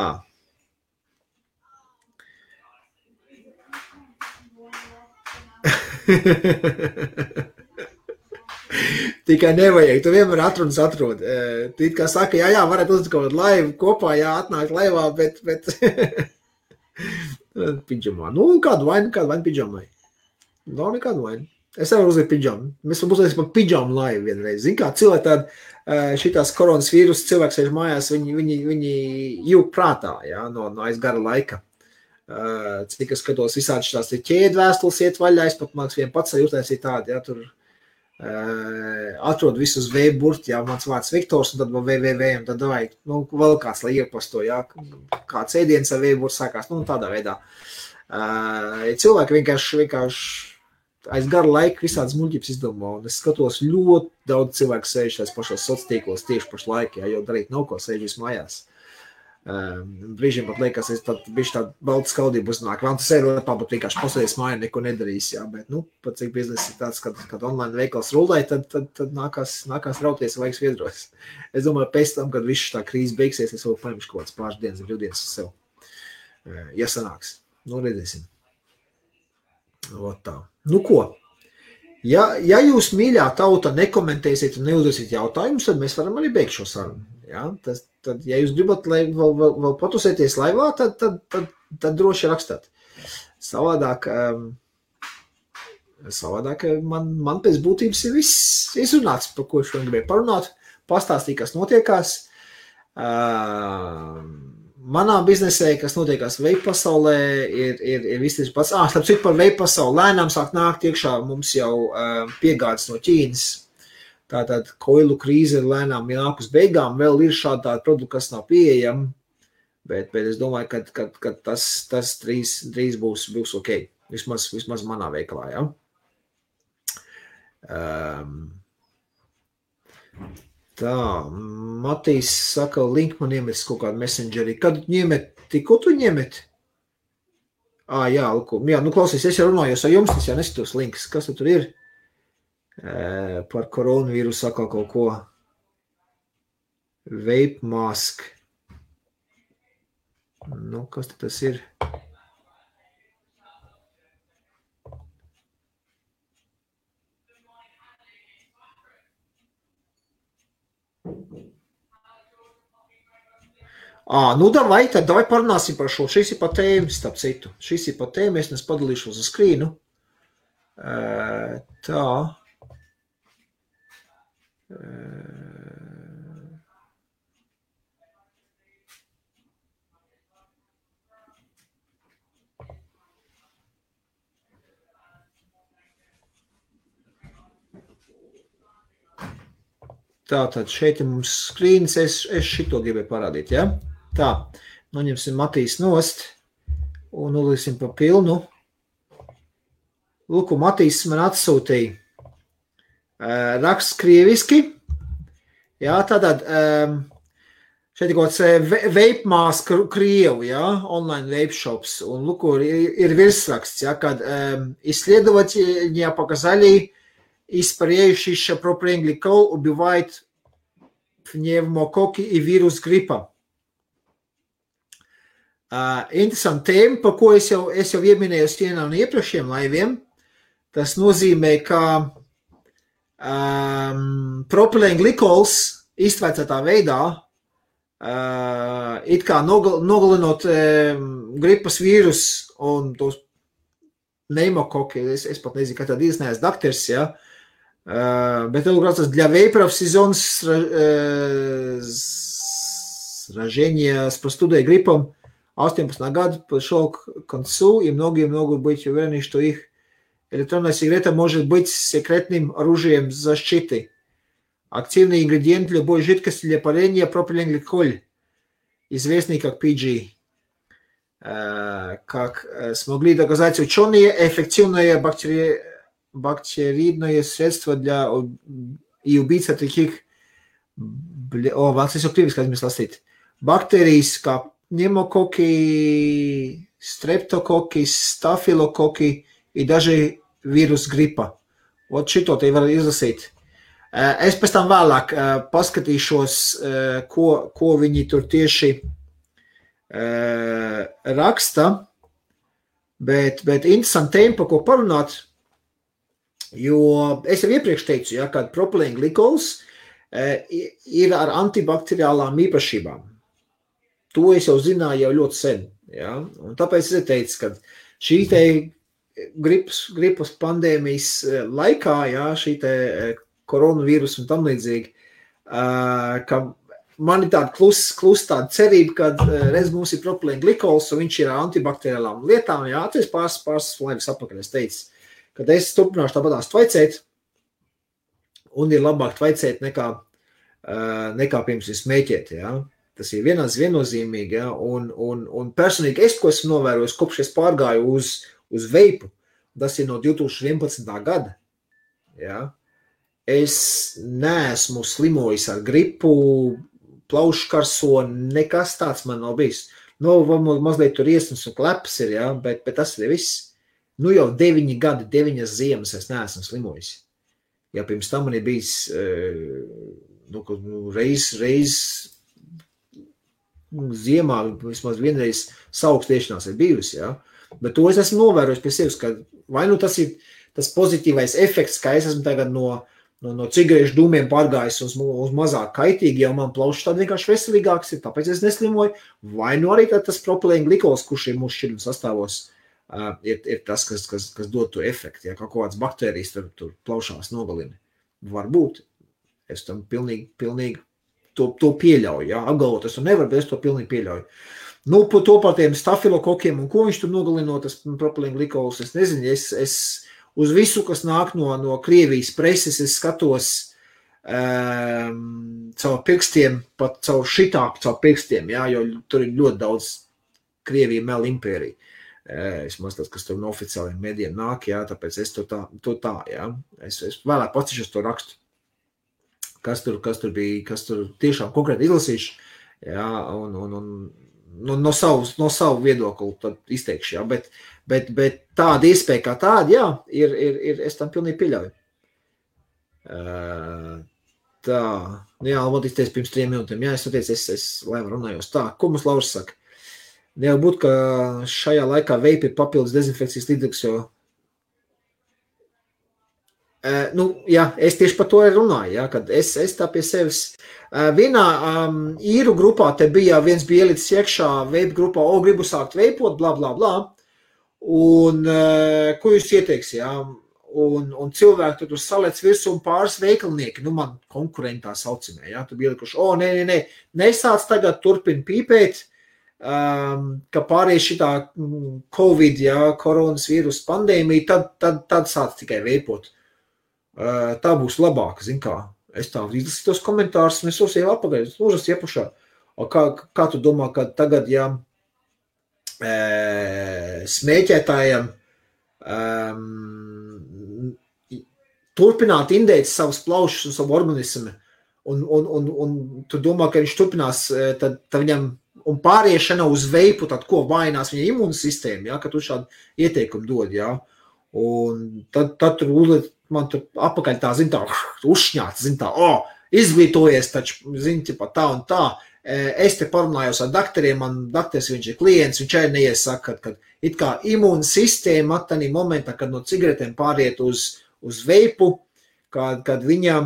Tikai nevajag, tu vienmēr atrod. Tu it kā saka, jā, varētu uzlikt kaut kādu laivu kopā, jā, atnākt laivā, bet pidžamā. Kādu vainu pidžamai. Nav nekādu vainu. Es nevaru uzlikt pidžamu. Mēs varam uzlikt par pidžamu laivu vienreiz. Zin kā, cilvēki tādi šitās koronas vīrus, cilvēks sēž mājās, viņi jūg prātā, jā, no aiz gara laika. Cik es skatos visādi šitās ķēdvēstules iet vaļā, es pat māks vien pats jūtēs ir tādi, jā, tur atrod visus V-burti, jā, mans vārds Viktors, un tad vēl www, un tad vajag, vēl kāds, lai iepasto, jā, kāds ēdienas ar V-burti sākās, tādā veidā. Cilvēki vienkārši aiz gara laika visādas muļķības izdomā, un es skatos ļoti daudz cilvēku sēž tās pašos sociālos tieši pašlaik, jā, jo darīt nav ko sēžīs mājās. Brīžiem pat liekas, es tad bišķi tādu baltu skaudību uznāk. Vēl tu sēdi lepā, bet vienkārši pasēdies mājā, neko nedarīs, jā, bet, pat cik biznesa ir tāds, kad online veikals rulē, tad nākās rauties vajag sviedros. Es domāju, pēc tam, kad viss tā krīze beigsies, es vēl paņemšu kaut kāds pāris dienas, brīvdienas uz sev. Ja sanāks. Redzēsim. Ot tā. Ko? Ja jūs mīļā tauta nekomentēsiet un neuzdosiet jautājumus, tad mēs varam arī beigt šo sarunu. Ja? Tad, ja jūs gribat vēl patusēties laivā, tad droši rakstāt. Savādāk man pēc būtības ir viss izrunāts, par ko šodien gribēju parunāt, pastāstīt, kas notiekās. Manā biznesē, kas notiekās vape pasaulē, ir viss tas pats. Starp citu par vape pasauli lēnām sāk nākt iekšā mums jau piegādes no Ķīnas. Tātad koilu krīze ir lēnām nāk uz beigām, vēl ir šādi tādi produkti, kas nav pieejami, bet es domāju, ka tas drīz būs ok, vismaz manā veikalā, ja? Tā, Matīs saka, link man iemetis kaut kādu messengerī. Kad ņemeti, ko tu ņemeti? Jā, klausies, es jau runājos ar jums, es jau neskatos links. Kas tur ir? Par koronavīrusu saka kaut ko. Vape mask. Kas tas ir? Davai parunāsim par šo. Šis ir pa tēmu, starp citu. Šis ir pa tēmu, es padalīšos uz skrīnu. Tā. Tātad šeit ir mums skrīns, es šito gribēju parādīt, ja? Tā, noņemsim Matīs nost un uzliksim pa pilnu. Lūku, Matīs man atsūtīja raksts krieviski. Jā, tātad šeit ir kaut kāds vape mask Krievu, ja? Online vape shops. Un lūku, ir virsraksts, ja? Kad исследования показали, испаряющийся пропиленгликол убивает пневмококки и вирус гриппа. Interesanti tēma, par ko es jau ieminēju vienā no iepriekšējiem laiviem. Tas nozīmē, ka propilēnglikols iztvēcētā veidā it kā nogalinot gripas vīrus un tos pneumokoki, es pat nezinu, kā tad neesmu dakters, ja? Bet tas для вейперов сезон сражения с простудой и гриппом 18 год подошел к концу, и многие могут быть уверены, что их электронная сигарета может быть секретным оружием защиты. Активный ингредиент любой жидкости для парения пропиленгликоль, известный как PG. Как смогли доказать ученые, эффективное бактериидное средство для и убийца таких бактерий, как пневмококи, стрептококи, стафилококи и даже вирус гриппа. Вот šito te var izlasīt. Es pēc tam vēlāk paskatīšos, ko viņi tur tieši raksta, bet interesanti tēma, par ko parunāt, jo es jau iepriekš teicu, ja, ka propilēnglikols ir ar antibakteriālām īpašībām. To es jau zināju jau ļoti sen, ja, un tāpēc es teicu, ka šī te gripas pandēmijas laikā, ja, šī te koronavīrus un tam līdzīgi, ka man ir tāda klus tāda cerība, ka reiz mums ir propilēnglikols, un viņš ir ar antibakteriālām lietām, jā, tas pāris laivas apakaļ es teicu, kad es turpināšu tāpatās tvaicēt, un ir labāk tvaicēt nekā pirms ir smēķēt, jā. Tas ir viennozīmīgi, jā, un personīgi es, ko esmu novērojis, kopš es pārgāju uz veipu, tas ir no 2011. Gada, jā. Es neesmu slimojis ar gripu, plaušu karso, nekas tāds man nav bijis. Mazliet tur iesnas un klepas ir, jā, bet tas ir viss. Jau 9 gadi, 9 ziemas es neesmu slimojis. Ja pirms tam man ir bijis reiz ziemā, vismaz vienreiz saukstiešanās ir bijusi, jā. Bet to es esmu novērojis pie sevis, ka vai tas ir tas pozitīvais efekts, ka es esmu tagad no cigarešu dūmiem pārgājis uz mazāk kaitīgi, jau man plaušas tādi vienkārši veselīgāks ir, tāpēc es neslimoju, vai arī tas propilēnglikols, kurš ir mūsu šķidruma sastāvos, ir tas, kas dod to efektu, ja kaut kāds baktērijas tur plaušās nogalina. Varbūt. Es tam pilnīgi to pieļauju, ja, apgalvot es to nevaru, bet es to pilnīgi pieļauju. To par tiem stafilokokiem un ko viņš tur nogalino, tas propilēnglikols, es nezinu, es uz visu, kas nāk no Krievijas preses, es skatos caur pirkstiem, pat caur pirkstiem, jā, jo tur ir ļoti daudz Krievija mel impērija. Vismaz tas, kas tur no oficiāliem medijiem nāk, jā, tāpēc es to tā, jā. Es vēlāk pacišos to rakstu. kas tur bija, kas tur tiešām konkrēti izlasījuši, jā, un no savu viedokli tad izteikšu, jā, bet tāda iespēja kā tāda, jā, ir es tam pilnīgi pieļauju. Tā, jā, Almot izteicis pirms 3 minūtēm, jā, es atteicu, es lēm runājos. Tā, ko mums Lauris saka? Nevar būt, ka šajā laikā veipi ir papildus dezinfekcijas līdzeklis, jo jā, es tieši par to runāju, jā, kad es tā pie sevis. Vienā īru grupā te bija, viens bija ielicis iekšā veipu grupā, gribu sākt veipot, bla, bla, bla. Un ko jūs ieteiks, jā? Un cilvēki tur salēc virsū un pāris veikalnieki, man konkurentā saucamē, jā, tu bija ielikuši, nē, nesāc tagad turpin pīpēt, ka pārējais šitā Covid, jā, koronas vīrus pandēmija, tad sāc tikai veipot. Tā būs labāka, zin kā. Es tā izlasīju tos komentārus, un es uzsēju apagaļ, lūžas iepušā. Kā tu domā, ka tagad, jā, smēķētājiem turpināt indēt savus plaušus un savu organismu, un tu domā, ka viņš turpinās, tad viņam, un pāriešana uz veipu, tad ko vainās viņa imūnsistēma, jā, ka tu šādu ieteikumu dod, jā. Un tad tur uzliet, man tur apakaļ tā, zin tā, uzšņāts, zin tā, izglītojies taču, zin, ķipa, tā un tā. Es te parunājos ar dakteriem, man dakters, viņš ir klients, viņš arī neiesaka, kad it kā imūnsistēma attanī momentā, kad no cigaretēm pāriet uz veipu, kad viņai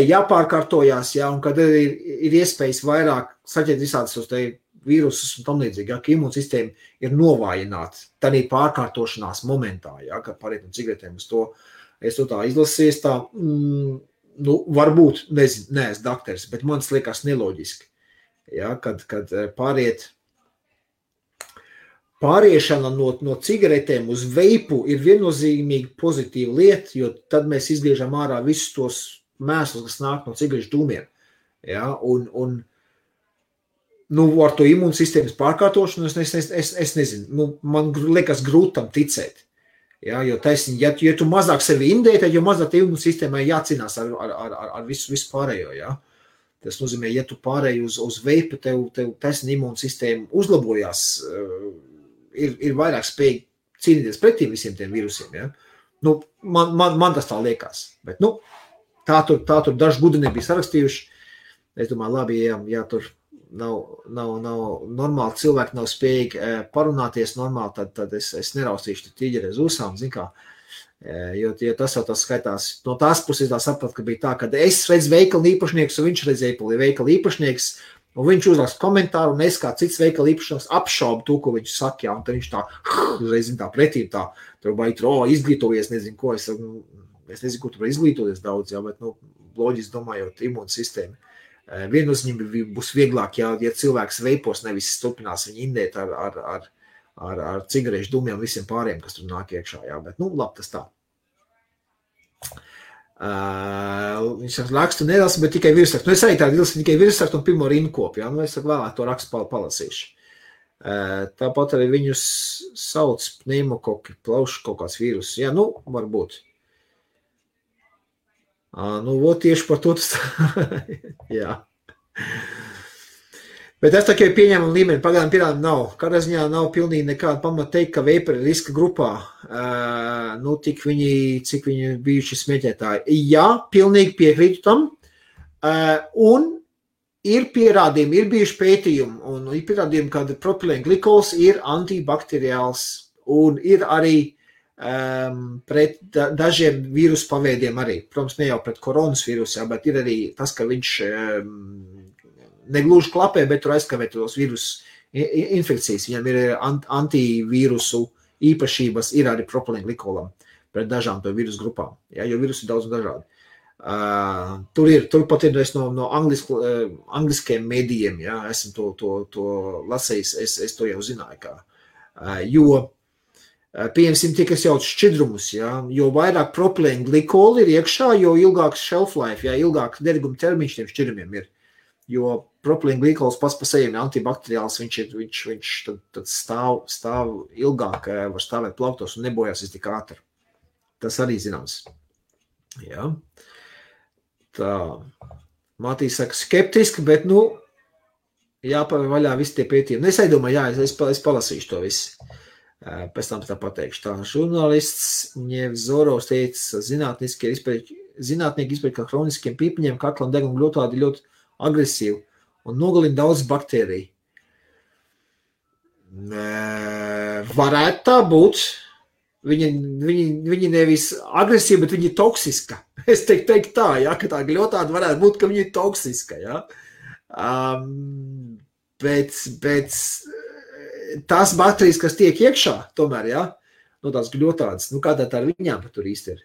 jāpārkārtojās, jā, un kad ir iespējas vairāk saķert visādas uz te vīrusus un tam līdzīgi, ja, ka imūnsistēma ir novājināta tādā pārkārtošanās momentā, ja, kad pāriet no cigaretēm uz to. Es to tā izlasīju, tā, varbūt, nezinu, neesmu dakteris, bet man liekas neloģiski, ja, kad pāriešana no cigaretēm uz veipu ir viennozīmīgi pozitīva lieta, jo tad mēs izgriežam ārā visus tos mēslus, kas nāk no cigarešu dūmiem, ja, un ar to imūnsistēmas pārkārtošanu es nezinu, man liekas grūti tam ticēt. Ja, jo taisni, ja tu mazāk sevi indē, tad jau mazāk imūnsistēmai jācīnās ar visu pārējo. Ja. Tas nozīmē, ja tu pārēji uz veipu, tev taisni imūnsistēma uzlabojās, ir vairāk spēj cīnīties pretī visiem tiem vīrusiem. Ja. Man tas tā liekas. Bet, tā tur daži gudri nebija sarakstījuši. Es domāju, labi, ja tur nav normāli, cilvēki nav spējīgi parunāties normāli, tad es neraustīšu tīģeri uz ūsām, zin kā, jo tas jau tas skaitās. No tās puses tā saprat, ka bija tā, ka es redzu veikala īpašnieks, un viņš redzēja veikala īpašnieks, un viņš uzrakst komentāru, un es kā cits veikala īpašnieks apšaubu to, ko viņš saka, jā, un tad viņš tā, uzreiz zin tā pretī, tā, tur vai tur, izglītojies, nezinu ko, es nezinu, ko tur izglītoties daudz, jā, bet, loģiski domājot, imūnsistēma. Viennozīmīgi būs vieglāk, ja cilvēks veipos, nevis turpinās viņu indēt ar cigarešu dūmiem visiem pāriem, kas tur nāk iekšā, jā, bet, labi, tas tā. Viņš rakstu nedalas, bet tikai virsrakstu. Es arī tādu ilsi tikai virsrakstu un pirmo rinkopu, jā, es vēlāk to rakstu palasīšu. Tāpat arī viņus sauc pneimokoki, plaušu kaut kāds vīrus, jā, varbūt. Tieši par to tas jā. Bet es tā kā pieņēmumu līmeni, pagaidām pierādījumu nav. Kādā ziņā nav pilnīgi nekāda pamata teikt, ka veiperi ir riska grupā, cik viņi bijuši smēķētāji. Jā, pilnīgi piekrītu tam. Un ir pierādījumi, ir bijuši pētījumi, un ir pierādījumi, ka propilēnglikols ir antibakteriāls, un ir arī pret dažiem vīrusu paveidiem arī. Protams, ne jau pret koronas vīrusu, bet ir arī tas, ka viņš negluži klapē, bet tur aizkavē tos vīrusu infekcijas. Viņam ir antivīrusu īpašības, ir arī propilēnglikolam pret dažām to vīrusu grupām, ja, jo vīrusu ir daudz un dažādi. Tur pat ir no angliskiem medijiem, ja, esmu to lasējis, es to jau zināju, jo pieņemsim tie, kas jauc šķidrumus, ja, jo vairāk propilēnglikoli ir iekšā, jo ilgāks shelf life, ja, ilgāks deriguma termiņš tiem šķidrumiem ir. Jo propilēnglikols pats pa sevi ir antibakteriāls, viņš tad stāv ilgāk, var stāvēt plauktos un nebojās tik ātri. Tas arī zināms. Ja. Tā. Matīs saka skeptiski, bet, jāpavēr vaļā visi tie pētījumi. Es domāju, es palasīšu to visu. Pēc tam tā pateikšu. Tā žurnālists Ņevzorovs teica, zinātnieki izpēj, ka hroniskiem pīpiņiem kaklam deguma gļotādi ļoti agresīvi un nogalina daudz baktēriju. Varētu tā būt. Viņi nevis agresīvi, bet viņi ir toksiska. Es teiktu tā, ka tā gļotāda varētu būt, ka viņi ir toksiska. Ja? Bet tās baktērijas, kas tiek iekšā, tomēr, tās gļotādas, kādā tā ar viņām tur īsti ir.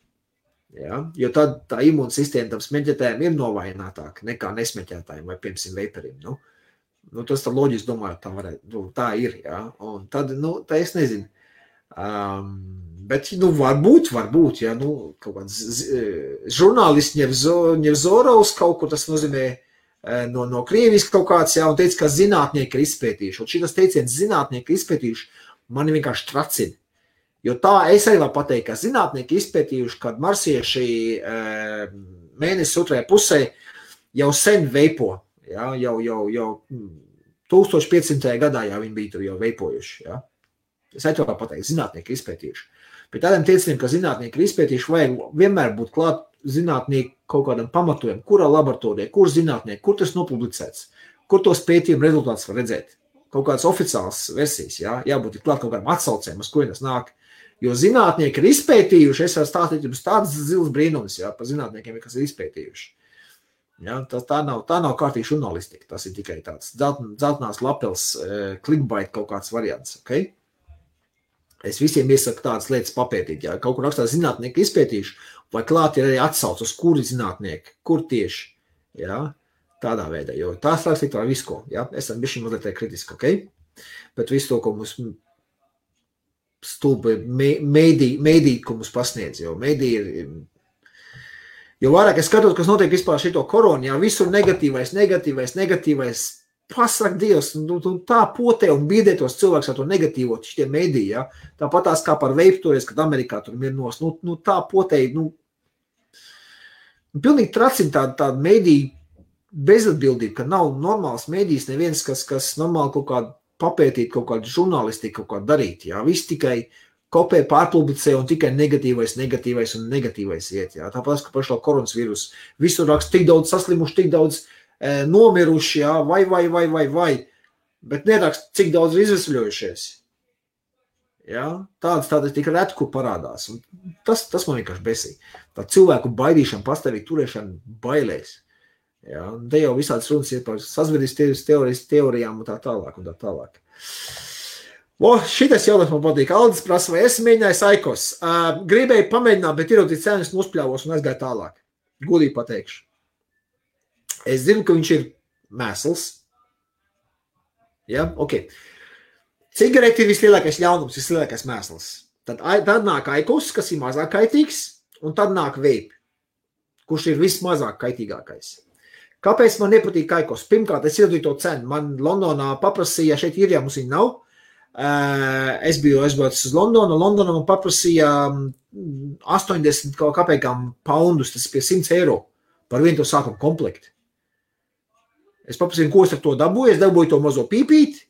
Ja? Jo tad tā imūnsistēma tam smeķētājiem ir novājinātāka nekā nesmeķētājiem vai, piemēram, veiperiem. Tas tā loģiski domāju, tā ir. Ja? Un tad, tā es nezinu. Bet, varbūt, ja, kaut kāds žurnālists Ņevzorovs kaut kur tas nozīmē no krieviski kaut kāds, un teica, ka zinātnieki ir izpētījuši. Un šitas teiciens zinātnieki ir izpētījuši, mani vienkārši tracina. Jo tā es arī varu pateikt, ka zinātnieki izpētījuši, kad marsieši mēnesis otrajā pusē jau sen veipo, jau 1500. gadā jau viņi bija tur jau veipojuši, Es varu pateikt, zinātnieki ir izpētījuši. Bet tādiem teiciniem, ka zinātnieki ir izpētījuši, vajag vienmēr būt klāt zinātnieki kaut kādam pamatojumam, kurā laboratorijā, kur zinātnieki, kur tas nopublicēts, kur tos pētījumu rezultātus var redzēt. Kaut kādas oficiālas versijas, jābūt klāt kaut kādām atsaucēm, uz kuriem tas nāk. Jo zinātnieki ir izpētījuši, es varu stāstīt jums tādas zils brīnums, par zinātniekiem, kas ir izpētījuši. Tā nav kārtīgi žurnālistika, tas ir tikai tāds dzeltenās lapels clickbait kaut kāds variants, ok? Es visiem iesaku tādas lietas papētīt, kaut kur rakstā zinātnieki izpētījuši, vai klāt ir arī atsauc uz kuri zinātnieki, kur tieši, tādā veidā, jo tās rakstīt var visu ko, esam bišķi mazliet kritiski, ok? Bet visu to, ko mums stulbi mēdī, ko mums pasniedz, jo mēdī ir, jo vairāk es skatos, kas notiek vispār šito koronu, visur negatīvais, pasak Dievs, tā potē un biedē tos cilvēks ar to negatīvo šitie mediji, Tāpat tās kā par veipu toreiz, kad Amerikā tur mirnos, tā potē, pilnīgi tracina tāda mediju bezatbildība, ka nav normāls medijs neviens, kas normāli kaut kādu papētīt, kaut kādu žurnālistiku, kaut kādu darīt, Viss tikai kopē pārpublicē un tikai negatīvais iet, Tāpēc, ka par šo koronavīrusu visur raksta tik daudz saslimuši, tik daudz nomiruši, vai, bet nerakst, cik daudz ir izvesaļojušies. Tādas tik reti, kur parādās. Un tas man vienkārši besī. Tā cilvēku baidīšana, pastāvīgi turēšana bailēs. Te jau visāds runas ir par sazvedības teorijām un tā tālāk. Šitais jautājums man patīk. Aldis prasa, vai es mēģināju Aikos. Gribēju pamēģināt, bet ierodīt cenas nospļāvos un aizgāju tālāk. Godīgi pateikšu. Es zinu, ka viņš ir mēsls. Ok. Cigareti ir vislielākais ļaunums, vislielākais mēsls. Tad nāk Aikos, kas ir mazāk kaitīgs, un tad nāk vape, kurš ir vismazāk kaitīgākais. Kāpēc man nepatīk Aikos? Pirmkārt, es ieradīju to cenu. Man Londonā paprasīja, šeit ir, mums viņa nav. Es biju aizbraucis uz Londonu. Londonā man paprasīja 80 kāpēkām poundus, tas pie 100 eiro par vienu to sākumu komplektu. Es paprasīju, ko es ar to dabūju. Es dabūju to mazo pīpīti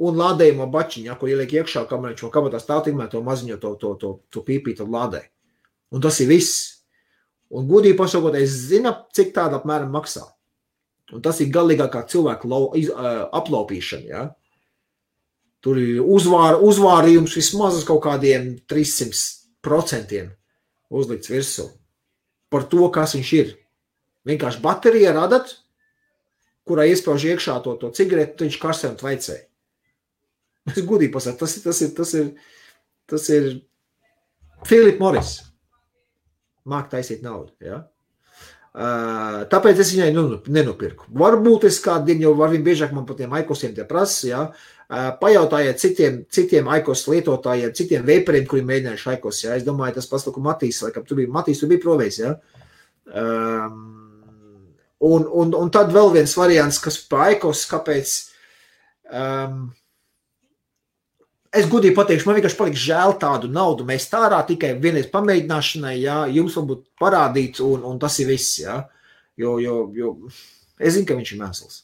un lādējumu bačiņu, ko ieliek iekšā, kamēr viņš vēl kabatā stāv, tikmēr to maziņo to pīpīti lādē. Un tas ir viss. Un godīgi pasakot, es zinu, cik tāda apmēram maksā. Un tas ir galīgākā cilvēku aplaupīšana, Tur ir uzvārījums vismaz uz kaut kādiem 300% uzlikts virsū. Par to, kas viņš ir. Vienkārši baterija radat, kurā iespauž iekšā to cigaretu, viņš karsē un tvaicē. Es godīgi pasaku, tas ir Philip Morris. Māk taisīt naudu, Tāpēc es viņai nenopirku. Varbūt es kādu dienu jau var viņu biežāk man par tiem Aikosiem tie prasa, Pajautājiet citiem Aikos lietotājiem, citiem veiperiem, kuri mēģinājuši Aikos, Es domāju, tas pats, ko Matīs, laikam, tu bija provējis, Un tad vēl viens variants, kas pa Aikos, kāpēc es godīgi pateikšu, man vienkārši paliks žēl tādu naudu mēs tārā tikai vienreiz pamēģināšanai, jums varbūt parādīt, un tas ir viss, Jo es zinu, ka viņš ir mēsls.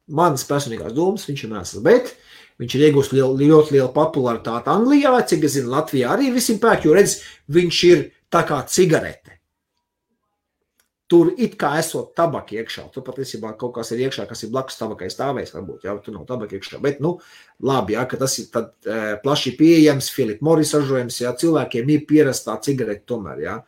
Manas personīgās domas, viņš ir mēsls, bet viņš ir iegūst ļoti lielu popularitāti Anglijā, cik es zinu, Latvijā arī visiem pērk, jo redz, viņš ir tā kā cigarete. Tur it kā esot tabaka iekšā, tur patiesībā kaut kas ir iekšā, kas ir blakus tabakai stāvējis, varbūt, jā, tur nav tabaka iekšā, bet, labi, jā, ka tas ir tad plaši pieejams, Philip Morris ražojums, jā, cilvēkiem ir pierastā cigarete tomēr, jā.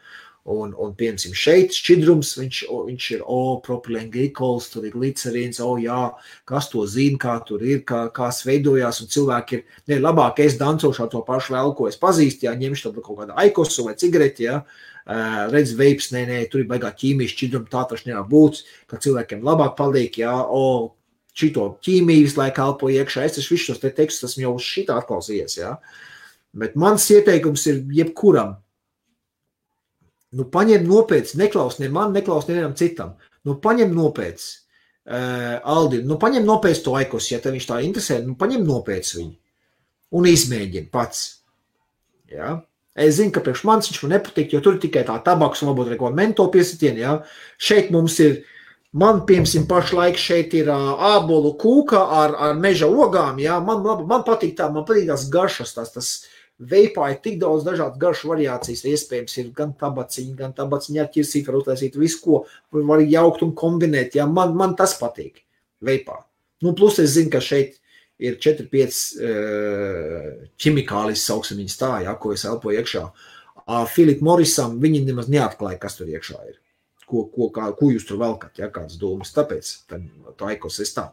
Un piemēram, šeit šķidrums, viņš ir, propilenglykols, tur ir glicerīns, jā, kas to zina, kā tur ir, kā veidojās, un cilvēki ir, labāk es dancošu to pašu vēl, ko es pazīstu, jā, ņemšu tad kaut kādu aikosu vai cigareti, jā, redz veips, tur ir baigā ķīmijas šķidruma, tā taču nevar būt, ka cilvēkiem labāk paliek, jā, šito ķīmijas, lai kalpo iekšā, es taču visus tos te tekstus esmu jau uz šitā atklausījies, jā, bet mans ieteikums ir jebkuram, paņem nopietni, neklaus ne man, neklaus nevienam citam. Paņem nopietni, Aldi, paņem nopietni to aikos, ja tev viņš tā interesē, paņem nopietni viņu un izmēģini pats. Ja? Es zinu, ka priekš manis viņš man nepatīk, jo tur ir tikai tā tabaks un varbūt neko mento piesitieni. Ja? Šeit mums ir, man piemēram pašlaik šeit ir ābolu kūka ar meža ogām. Ja? Man patīk tā, man patīk tās garšas, tas veipā ir tik daudz dažādas garšu variācijas, iespējams ir gan tabaciņa ar ķirsīt, var uztaisīt visu, ko var jaukt un kombinēt, ja, man tas patīk, veipā. Plus es zinu, ka šeit ir 4-5 ķimikālis, sauksim viņas tā, ja, ko es elpoju iekšā. Philip Morrisam viņi nemaz neatklāja, kas tur iekšā ir, ko jūs tur velkat, ja, kādas domas, tāpēc tā aikos es tā.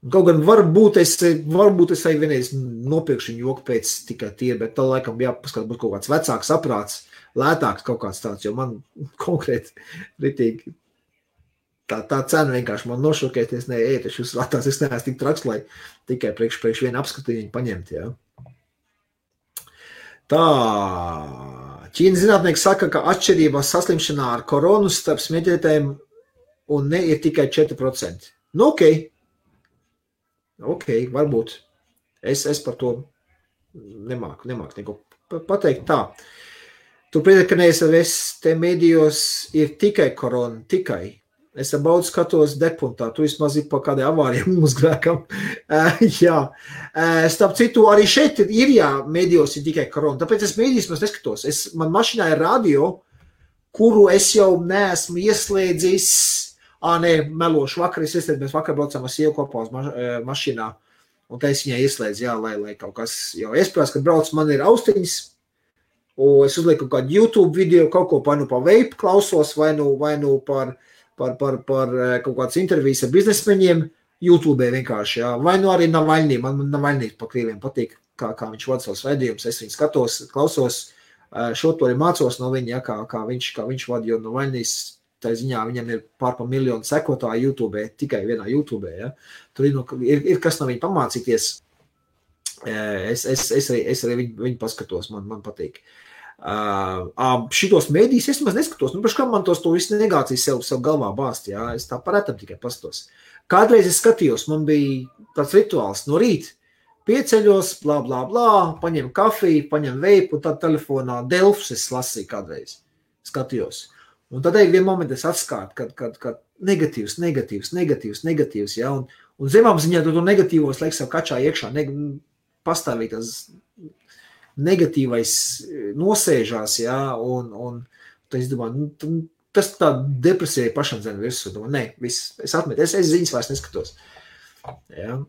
Kaut gan varbūt es arī vienreiz nopirkšu viņu joku pēc tikai tie, bet tā laikam jāpaskat būt kaut kāds vecāks aprāts, lētāks kaut kāds tāds, jo man konkrēti ritīgi tā cena vienkārši man nošokēties, taču uz latās es neesmu tik traks, lai tikai priekš vienu apskatījumu paņemt, jā. Tā, Ķīnas zinātnieki saka, ka atšķirībā saslimšanā ar koronu starp smieķētājiem un ne ir tikai 4%. Ok, varbūt. Es par to nemāku neko pateikt tā. Tu priecāt, ka neesam te medijos ir tikai korona, tikai. Es baudu skatos depuntā, tu vismaz ir pa kādai avārijam uzgrēkam. Jā. Starp citu, arī šeit ir, jā, medijos ir tikai korona, tāpēc es medijos neskatos. Man mašīnā ir radio, kuru es jau neesmu ieslēdzis. Melošu vakar, mēs vakar braucām ar sievu kopā uz mašīnā, un tā es viņai ieslēdzu, jā, lai kaut kas, jo iespējams, kad brauc, man ir austiņas, un es uzlieku kādu YouTube video, kaut ko par veipu klausos, vai nu par kaut kādas intervijas ar biznesmeņiem, YouTube vienkārši, jā, vai nu arī Navaļnī, man Navaļnī pa krieviem patīk, kā viņš vada savus raidījumus, es viņu skatos, klausos, šo to arī mācos no viņa, jā, kā viņš vada, jo Navaļnīs, tā ziņā viņam ir pār 1 miljonu sekotāju YouTube, tikai vienā YouTube, ja. Tur ir kas no viņa pamācīties. Es arī viņu paskatos, man patīk. Šitos mēdījus es maz neskatos, kā man to visu negācijas sev galvā bāst, ja. Es tā paretam tikai paskatos. Kādreiz es skatījos, man bija tāds rituāls no rīt, pieceļos, blā, blā, blā, paņem kafiju, paņem veipu, un tad telefonā Delfus es lasīju kādreiz, skatījos. Un tad vien momentu es atskārtu, kad negatīvs, ja, un zemām ziņā to negatīvos liek sev kačā iekšā, pastāvīt tas negatīvais nosēžās, ja, un es domāju, tas tā depresija pašam zem virsū, viss, es atmetu, es ziņas vairs neskatos, ja.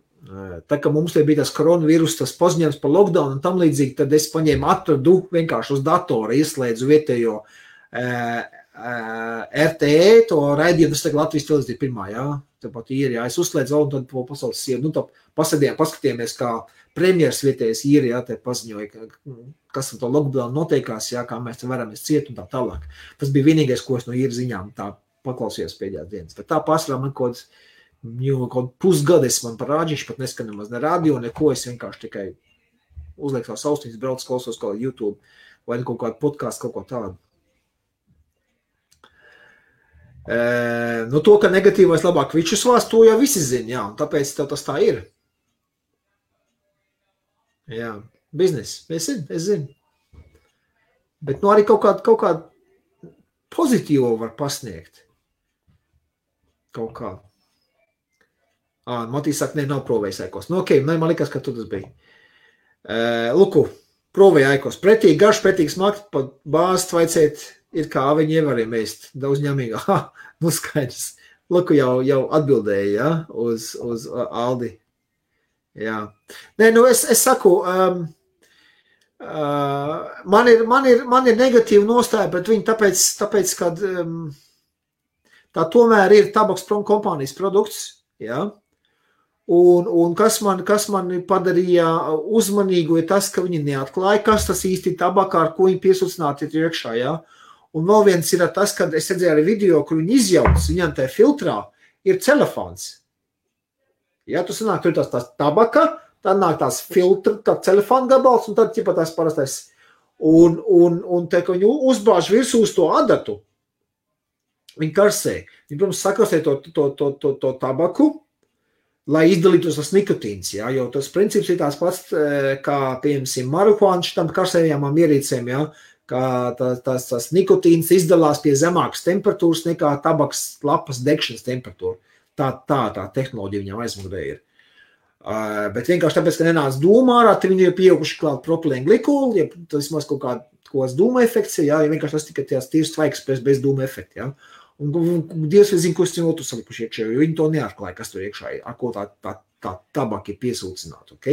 Tā kā mums bija tas koronavīrus, tas paziņojums par lockdown un tam līdzīgi, tad es paņēmu atradu vienkārši uz datora, ieslēdzu vietējo RTE, to raidījumu, tas tagad Latvijas televīzija pirmā, jā, tāpat ir, jā, es uzslēdzu vēl un tad po pasaules sievu, tā paskatījāmies, kā premjeras vietējais ir, jā, te paziņoja, kas ar to lockdown noteikās, jā, kā mēs te varamies ciet un tā tālāk. Tas bija vienīgais, ko es no īra ziņām tā paklausījos pēdējās dienas. Bet tā pārsvarā man kaut pusgades man parādījuši, pat neskan nemaz ne radio, neko, es vienkārši tikai uzlieku savus austiņas, braucu, klausos kaut YouTube vai kaut kādu podcastu, kaut ko tādu. To, ka negatīvais labāk vičus vās, to jau visi zina, jā, un tāpēc tev tas tā ir. Jā, biznes, es zinu. Bet arī kaut kāda pozitīvo var pasniegt. Kaut kā. Matīs saka, nav provējis Aikos. Nu, ok, man likās, ka tu tas bija. Luku, provēja Aikos. Pretīgi garš, pretīgi smakt, pa bāzi tvaicēt, ir kā viņi ievariem ēst. Daudz ņemīgi. Nu skaidrs. Luku jau atbildēja, ja, uz Aldi. Jā. Nē, nu es saku, man ir negatīva nostāja, bet viņi tāpēc kad tā tomēr ir tabaks kompānijas produkts, jā. Un kas man padarīja uzmanīgu, ir tas, ka viņi neatklāja, kas tas īsti tabakā, ar ko viņi piesūcināti ir iekšā, jā. Un vēl viens ir tas, kad es redzēju arī video, kur viņi izjauc, viņam tajā filtrā ir celofāns. Ja tu sanāk, tur ir tās tabaka, tad nāk tās filtra, tā telefona gabals, un tad ķipa tās parastais. Un te, ka viņi uzbāž virsū uz to adatu, viņi karsē. Viņi, protams, sakarsē to tabaku, lai izdalītos tas nikotīns, ja, jo tas princips ir tās pats, kā, piemēram, marihuāna šitam karsējamām ierīcēm, ja, kā tas nikotīns izdalās pie zemākas temperatūras nekā tabaks lapas degšanas temperatūra. Tā tehnoloģija viņam aizmugurē ir. Bet vienkārši tāpēc, ka nenāca dūmā ārā, tad viņi ir pieauguši klāt propilēnu glikolu, ja tas maz kaut kāds dūma efekts, ja vienkārši tas tikai tās tīrs tvaiks bez dūma efekta, ja. Un Dievs vai zina, ko es viņu otru salikuši iekšā, jo viņi to neatklāja, kas tur iekšā ir, ar ko tā tabaka ir piesūcināta, ok?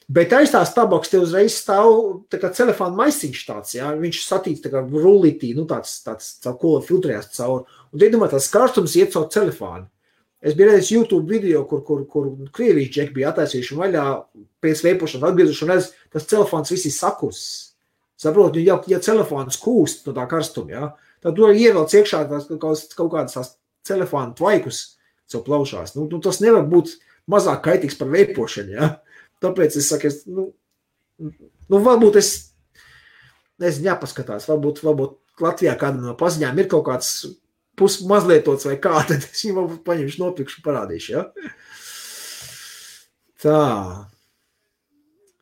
Bet aiz tās tabaks te uzreiz stāv tā kā telefona maisiņš tāds, ja, viņš satīts tā kā rullītī, nu tāds ko filtrējās caur, un te domā, tās karstums iet caur telefonu. Es biju redzējis YouTube video, kur Krievijas džeki bija attaisījuši vaļā pēc veipošanas atgriezuši un redz, tas telefons visi sakus. Saprot, ja telefons kūst no tā karstuma, ja, tad tu ievelc iekšā kaut kādas tās telefona tvaikus sev plaušās. Nu, tas nevar būt mazāk kaitīgs par veipošanu, ja. Tāpēc es saku, varbūt nezinu, jāpaskatās, varbūt Latvijā kādam no paziņām ir kaut kāds mazlietots vai kā, tad es viņu varbūt paņemšu, nopirkšu, parādīšu, ja? Tā.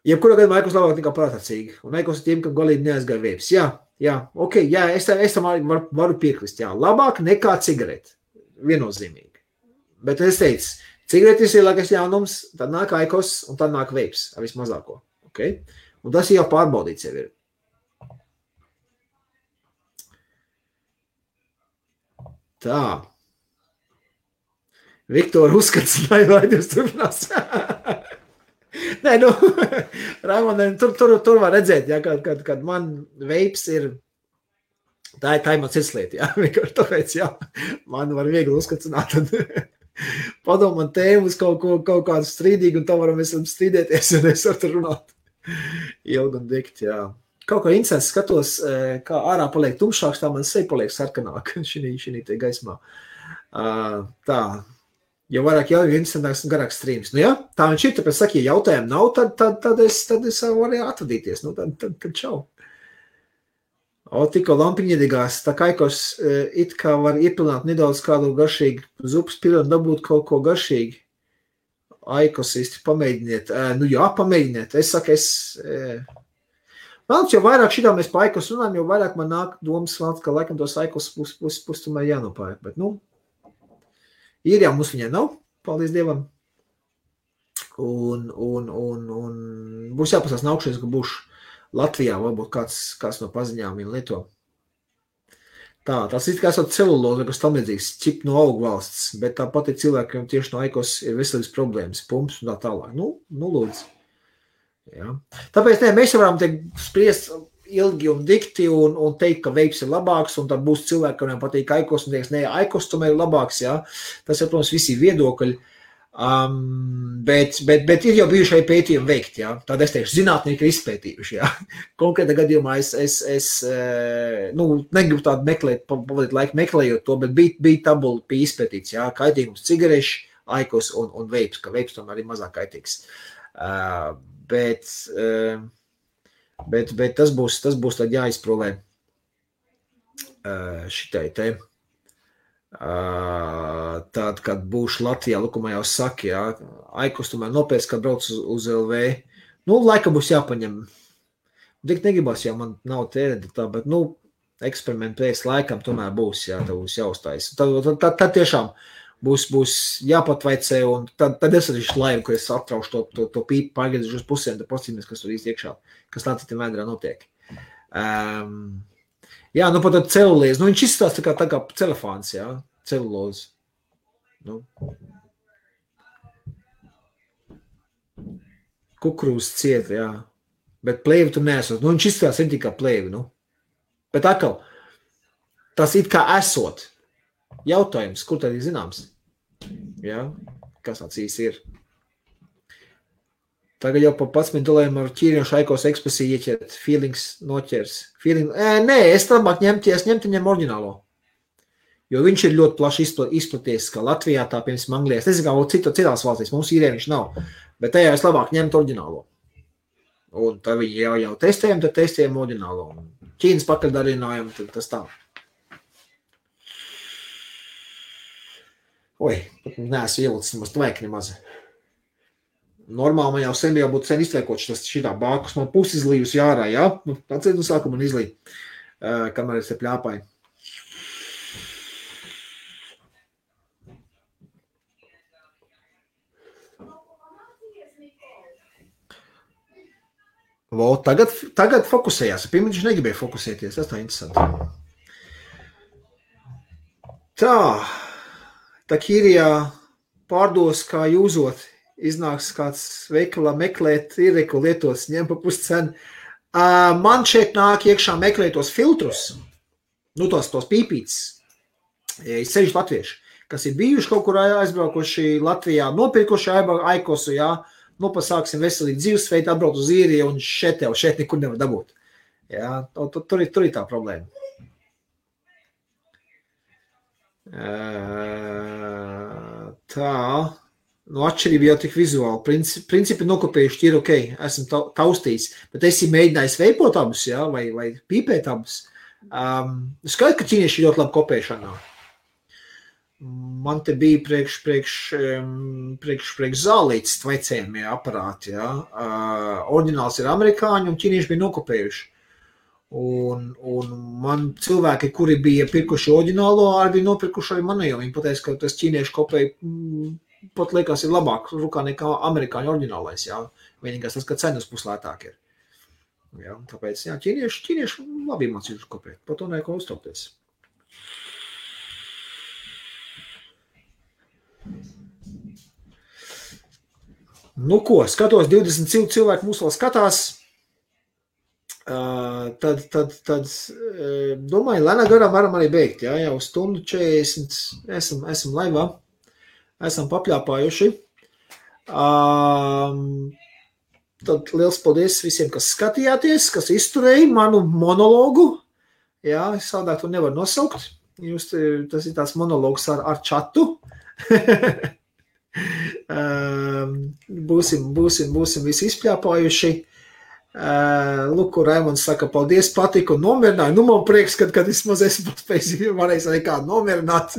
Jebkurā gadījumā Aikos labāk nekā prātacīgi, un Aikos ir tiem, kam galīgi neaizgāja veips. Jā, ok, jā, es tam varu piekrist, jā, labāk nekā cigareti, viennozīmīgi. Bet es teicu, cigaretes ir lielākais jaunums, tad nāk Aikos, un tad nāk veips, ar vismazāko, ok? Un tas jau pārbaudīts jau ir. Tā. Viktora uzskats, lai jūs turpinās. Nē, nu, Raimond, tur var redzēt, ja, kad man veips ir, tā ir man cirslieta, ja, vienkārši tāpēc, ja, man var viegli uzskatsināt, tad padomāt tēmu uz kaut kādu strīdīgu, un tā varam mēs strīdēties, un es varu runāt ilgi un dikti, jā. Kaut kā incents skatos, kā ārā paliek tumšāks, tā man seja paliek sarkanāk šī te gaismā. Tā, jo vairāk jau incentāks un garāks streams. Nu jā, tā viņš ir, tāpēc saka, ja jautājumu nav, tad es varu atvadīties. Nu, tad čau. Tikko lampiņa iedegās, tā Aikos it kā var iepilināt nedaudz kādu garšīgu zupas pilu un dabūt kaut ko garšīgi. Aikos īsti pamēģiniet. Nu jā, pamēģiniet. Es saku, Vēl, jo vairāk šitā mēs pa Aikos runājam, jo vairāk man nāk domas, ka laikam tos Aikos pusi tomēr jānopērk. Bet, nu, ir jau mums viņai nav, paldies Dievam. Un būs jāpasās naukšies, ka būšu Latvijā, varbūt kāds no paziņām viņa lieto. Tas ir kā esot celuloza, kas tam līdzīgs, čip no augu valsts, bet tāpat ir cilvēkiem tieši no Aikos ir veselības problēmas, pumps un tā tālāk. Nu lūdzu. Ja. Tāpēc mēs varam spriest ilgi un dikti un teikt, ka veips ir labāks, un tad būs cilvēki, kuriem patīk Aikos, un teiks, nē, Aikos tomēr ir labāks, ja. Tas ir, protams, visi viedokļi, bet ir jau bijušai pētījumi veikt, ja. Tad es teikšu, zinātnieki ir izpētījuši, ja. Konkrētā gadījumā es negribu tādu meklēt, pavadīt laiku meklējot to, bet bija tabula, bija izpētīts, ja, kaitīgums cigareši, Aikos un veips, ka veips tomēr ir mazāk kaitīgs. Bet tas būs tad jāizprolē šitai te. Tad, kad būšu Latvijā, lukumā jau saka, jā, Aikos tomēr nopēc, kad brauc uz LV. Nu, laika būs jāpaņem. Tik negribās, jau man nav tērēta tā, bet, nu, eksperimentu pēc laikam tomēr būs, jā, tev būs jāuztais. Tad tiešām būs jāpatvaicē, un tad es arī laivu, ka es atraušu to pīpu, pārgādīšu uz pusēm, tad postīmies, kas tur īsti iekšā, kas tā citam vēdrā notiek. Jā, nu pat celulīzi, nu viņš izstās tā kā celofāns, jā, celulūzi. Nu. Kukurūzas ciet, jā. Bet plēvi tu neesot. Nu, viņš izstās ir tikai plēvi, nu. Bet atkal, tas it kā esot. Jautājums, kur tad ir zināms? Jā, kas tāds īsti ir? Tagad jau pa 11 dolāriem ar ķīriešu Aikos ekspresiju ieķert, feelings noķers. Nē, es labāk ņemtu oriģinālo. Jo viņš ir ļoti plaši izplaties, kā Latvijā, tā piemēram Anglijā. Es nezinu, kā citās valstīs, mums īrē viņš nav. Bet tajā es labāk ņemtu oriģinālo. Un tad viņi jau testējam, tad testējam oriģinālo. Ķīnas pakaļdarinājam, tad tas tā. Oi, pat neesmu ielicis nemaz tvaik nemaz. Normāli man jau sen būtu iztveikots šitā bākus, man pusi izlījusi ārā, jā? Nu, atceļ no sākuma man izlīja, kamēr es te pļāpāju. Tagad fokusējās. Pirmā viņš negribēja fokusēties. Tas tā interesanti. Tā Kīrijā pārdos, kā jūzot, iznāks kāds veikalā meklēt, iereku lietos, ņem pa puscenu. Man šeit nāk iekšā meklēt tos filtrus, nu tos pīpītes, sevišķi latvieši, kas ir bijuši kaut kur aizbraukuši Latvijā, nopirkuši Aikosu, jā, nu pasāksim veselīgi dzīvesveidu, atbraukt uz Īriju un šeit nekur nevar dabūt. Jā, tur ir tā problēma. Tā, nu atšķirība jau tik vizuāli. Principi nokopējuši ir ok, esmu taustījis, bet esi mēģinājis veipot abus, jā, vai pīpēt abus. Skaidrs, ka ķīnieši ļoti labi kopēšanā. Man te bija priekš zālītes tvaicējumie aparāti, jā. Oriģināls ir amerikāņi un ķīnieši bija nokopējuši. Un man cilvēki, kuri bija pirkuši oriģinālo, arī bija nopirkuši arī manējo. Viņi pateica, ka tas ķīnieši kopēji pat liekas ir labāk rukā nekā amerikāņu oriģinālais, jā. Vienīgais tas, ka cenas puslētāk ir. Jā, tāpēc, jā, ķīnieši labi mācījuši kopēt. Par to neko uztraukties. Nu ko, skatos, 20 cilvēki mūs vēl skatās. Tad domāju, lēnā garā varam arī beigt, jā, jau stundu 40 esam laivā, esam papļāpājuši. Tad liels paldies visiem, kas skatījāties, kas izturēja manu monologu, jā, sādāk to nevar nosaukt, tas ir tāds monologs ar čatu. Būsim visi izpļāpājuši. Lūk, Raimonds saka, paldies, patika un nomierināju. Nu, man prieks, kad vismaz esmu varējis arī kādu nomierināt.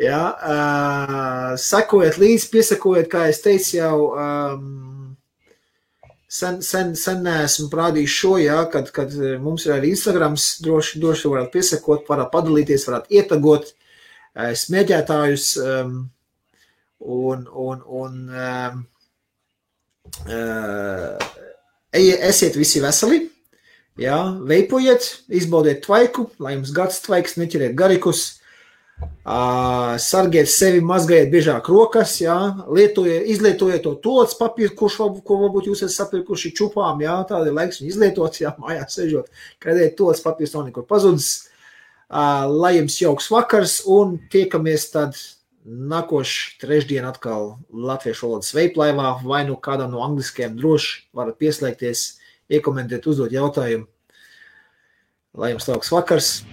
Jā, sekojiet līdzi, piesakojiet, kā es teicu jau, sen neesmu prādījis šo, jā, kad mums ir arī Instagrams, droši varat piesakot, varat padalīties, varat ietagot smēģētājus esiet visi veseli, jā, veipojiet, izbaudiet tvaiku, lai jums gads tvaiks, neķeriet garikus, sargiet sevi, mazgājiet biežāk rokas, jā, izlietojiet to toats papīru, ko varbūt jūs esat sapirkuši čupām, jā, tāda ir laiks viņu izlietot, jā, mājās sežot, kādēļ toats papīrs nav nekur pazudis, lai jums jauks vakars un tiekamies tad nākošu trešdien atkal latviešu valodas veiplaivā, vai nu kādam no angliskajiem droši varat pieslēgties, iekomentēt, uzdot jautājumu. Lai jums labs vakars!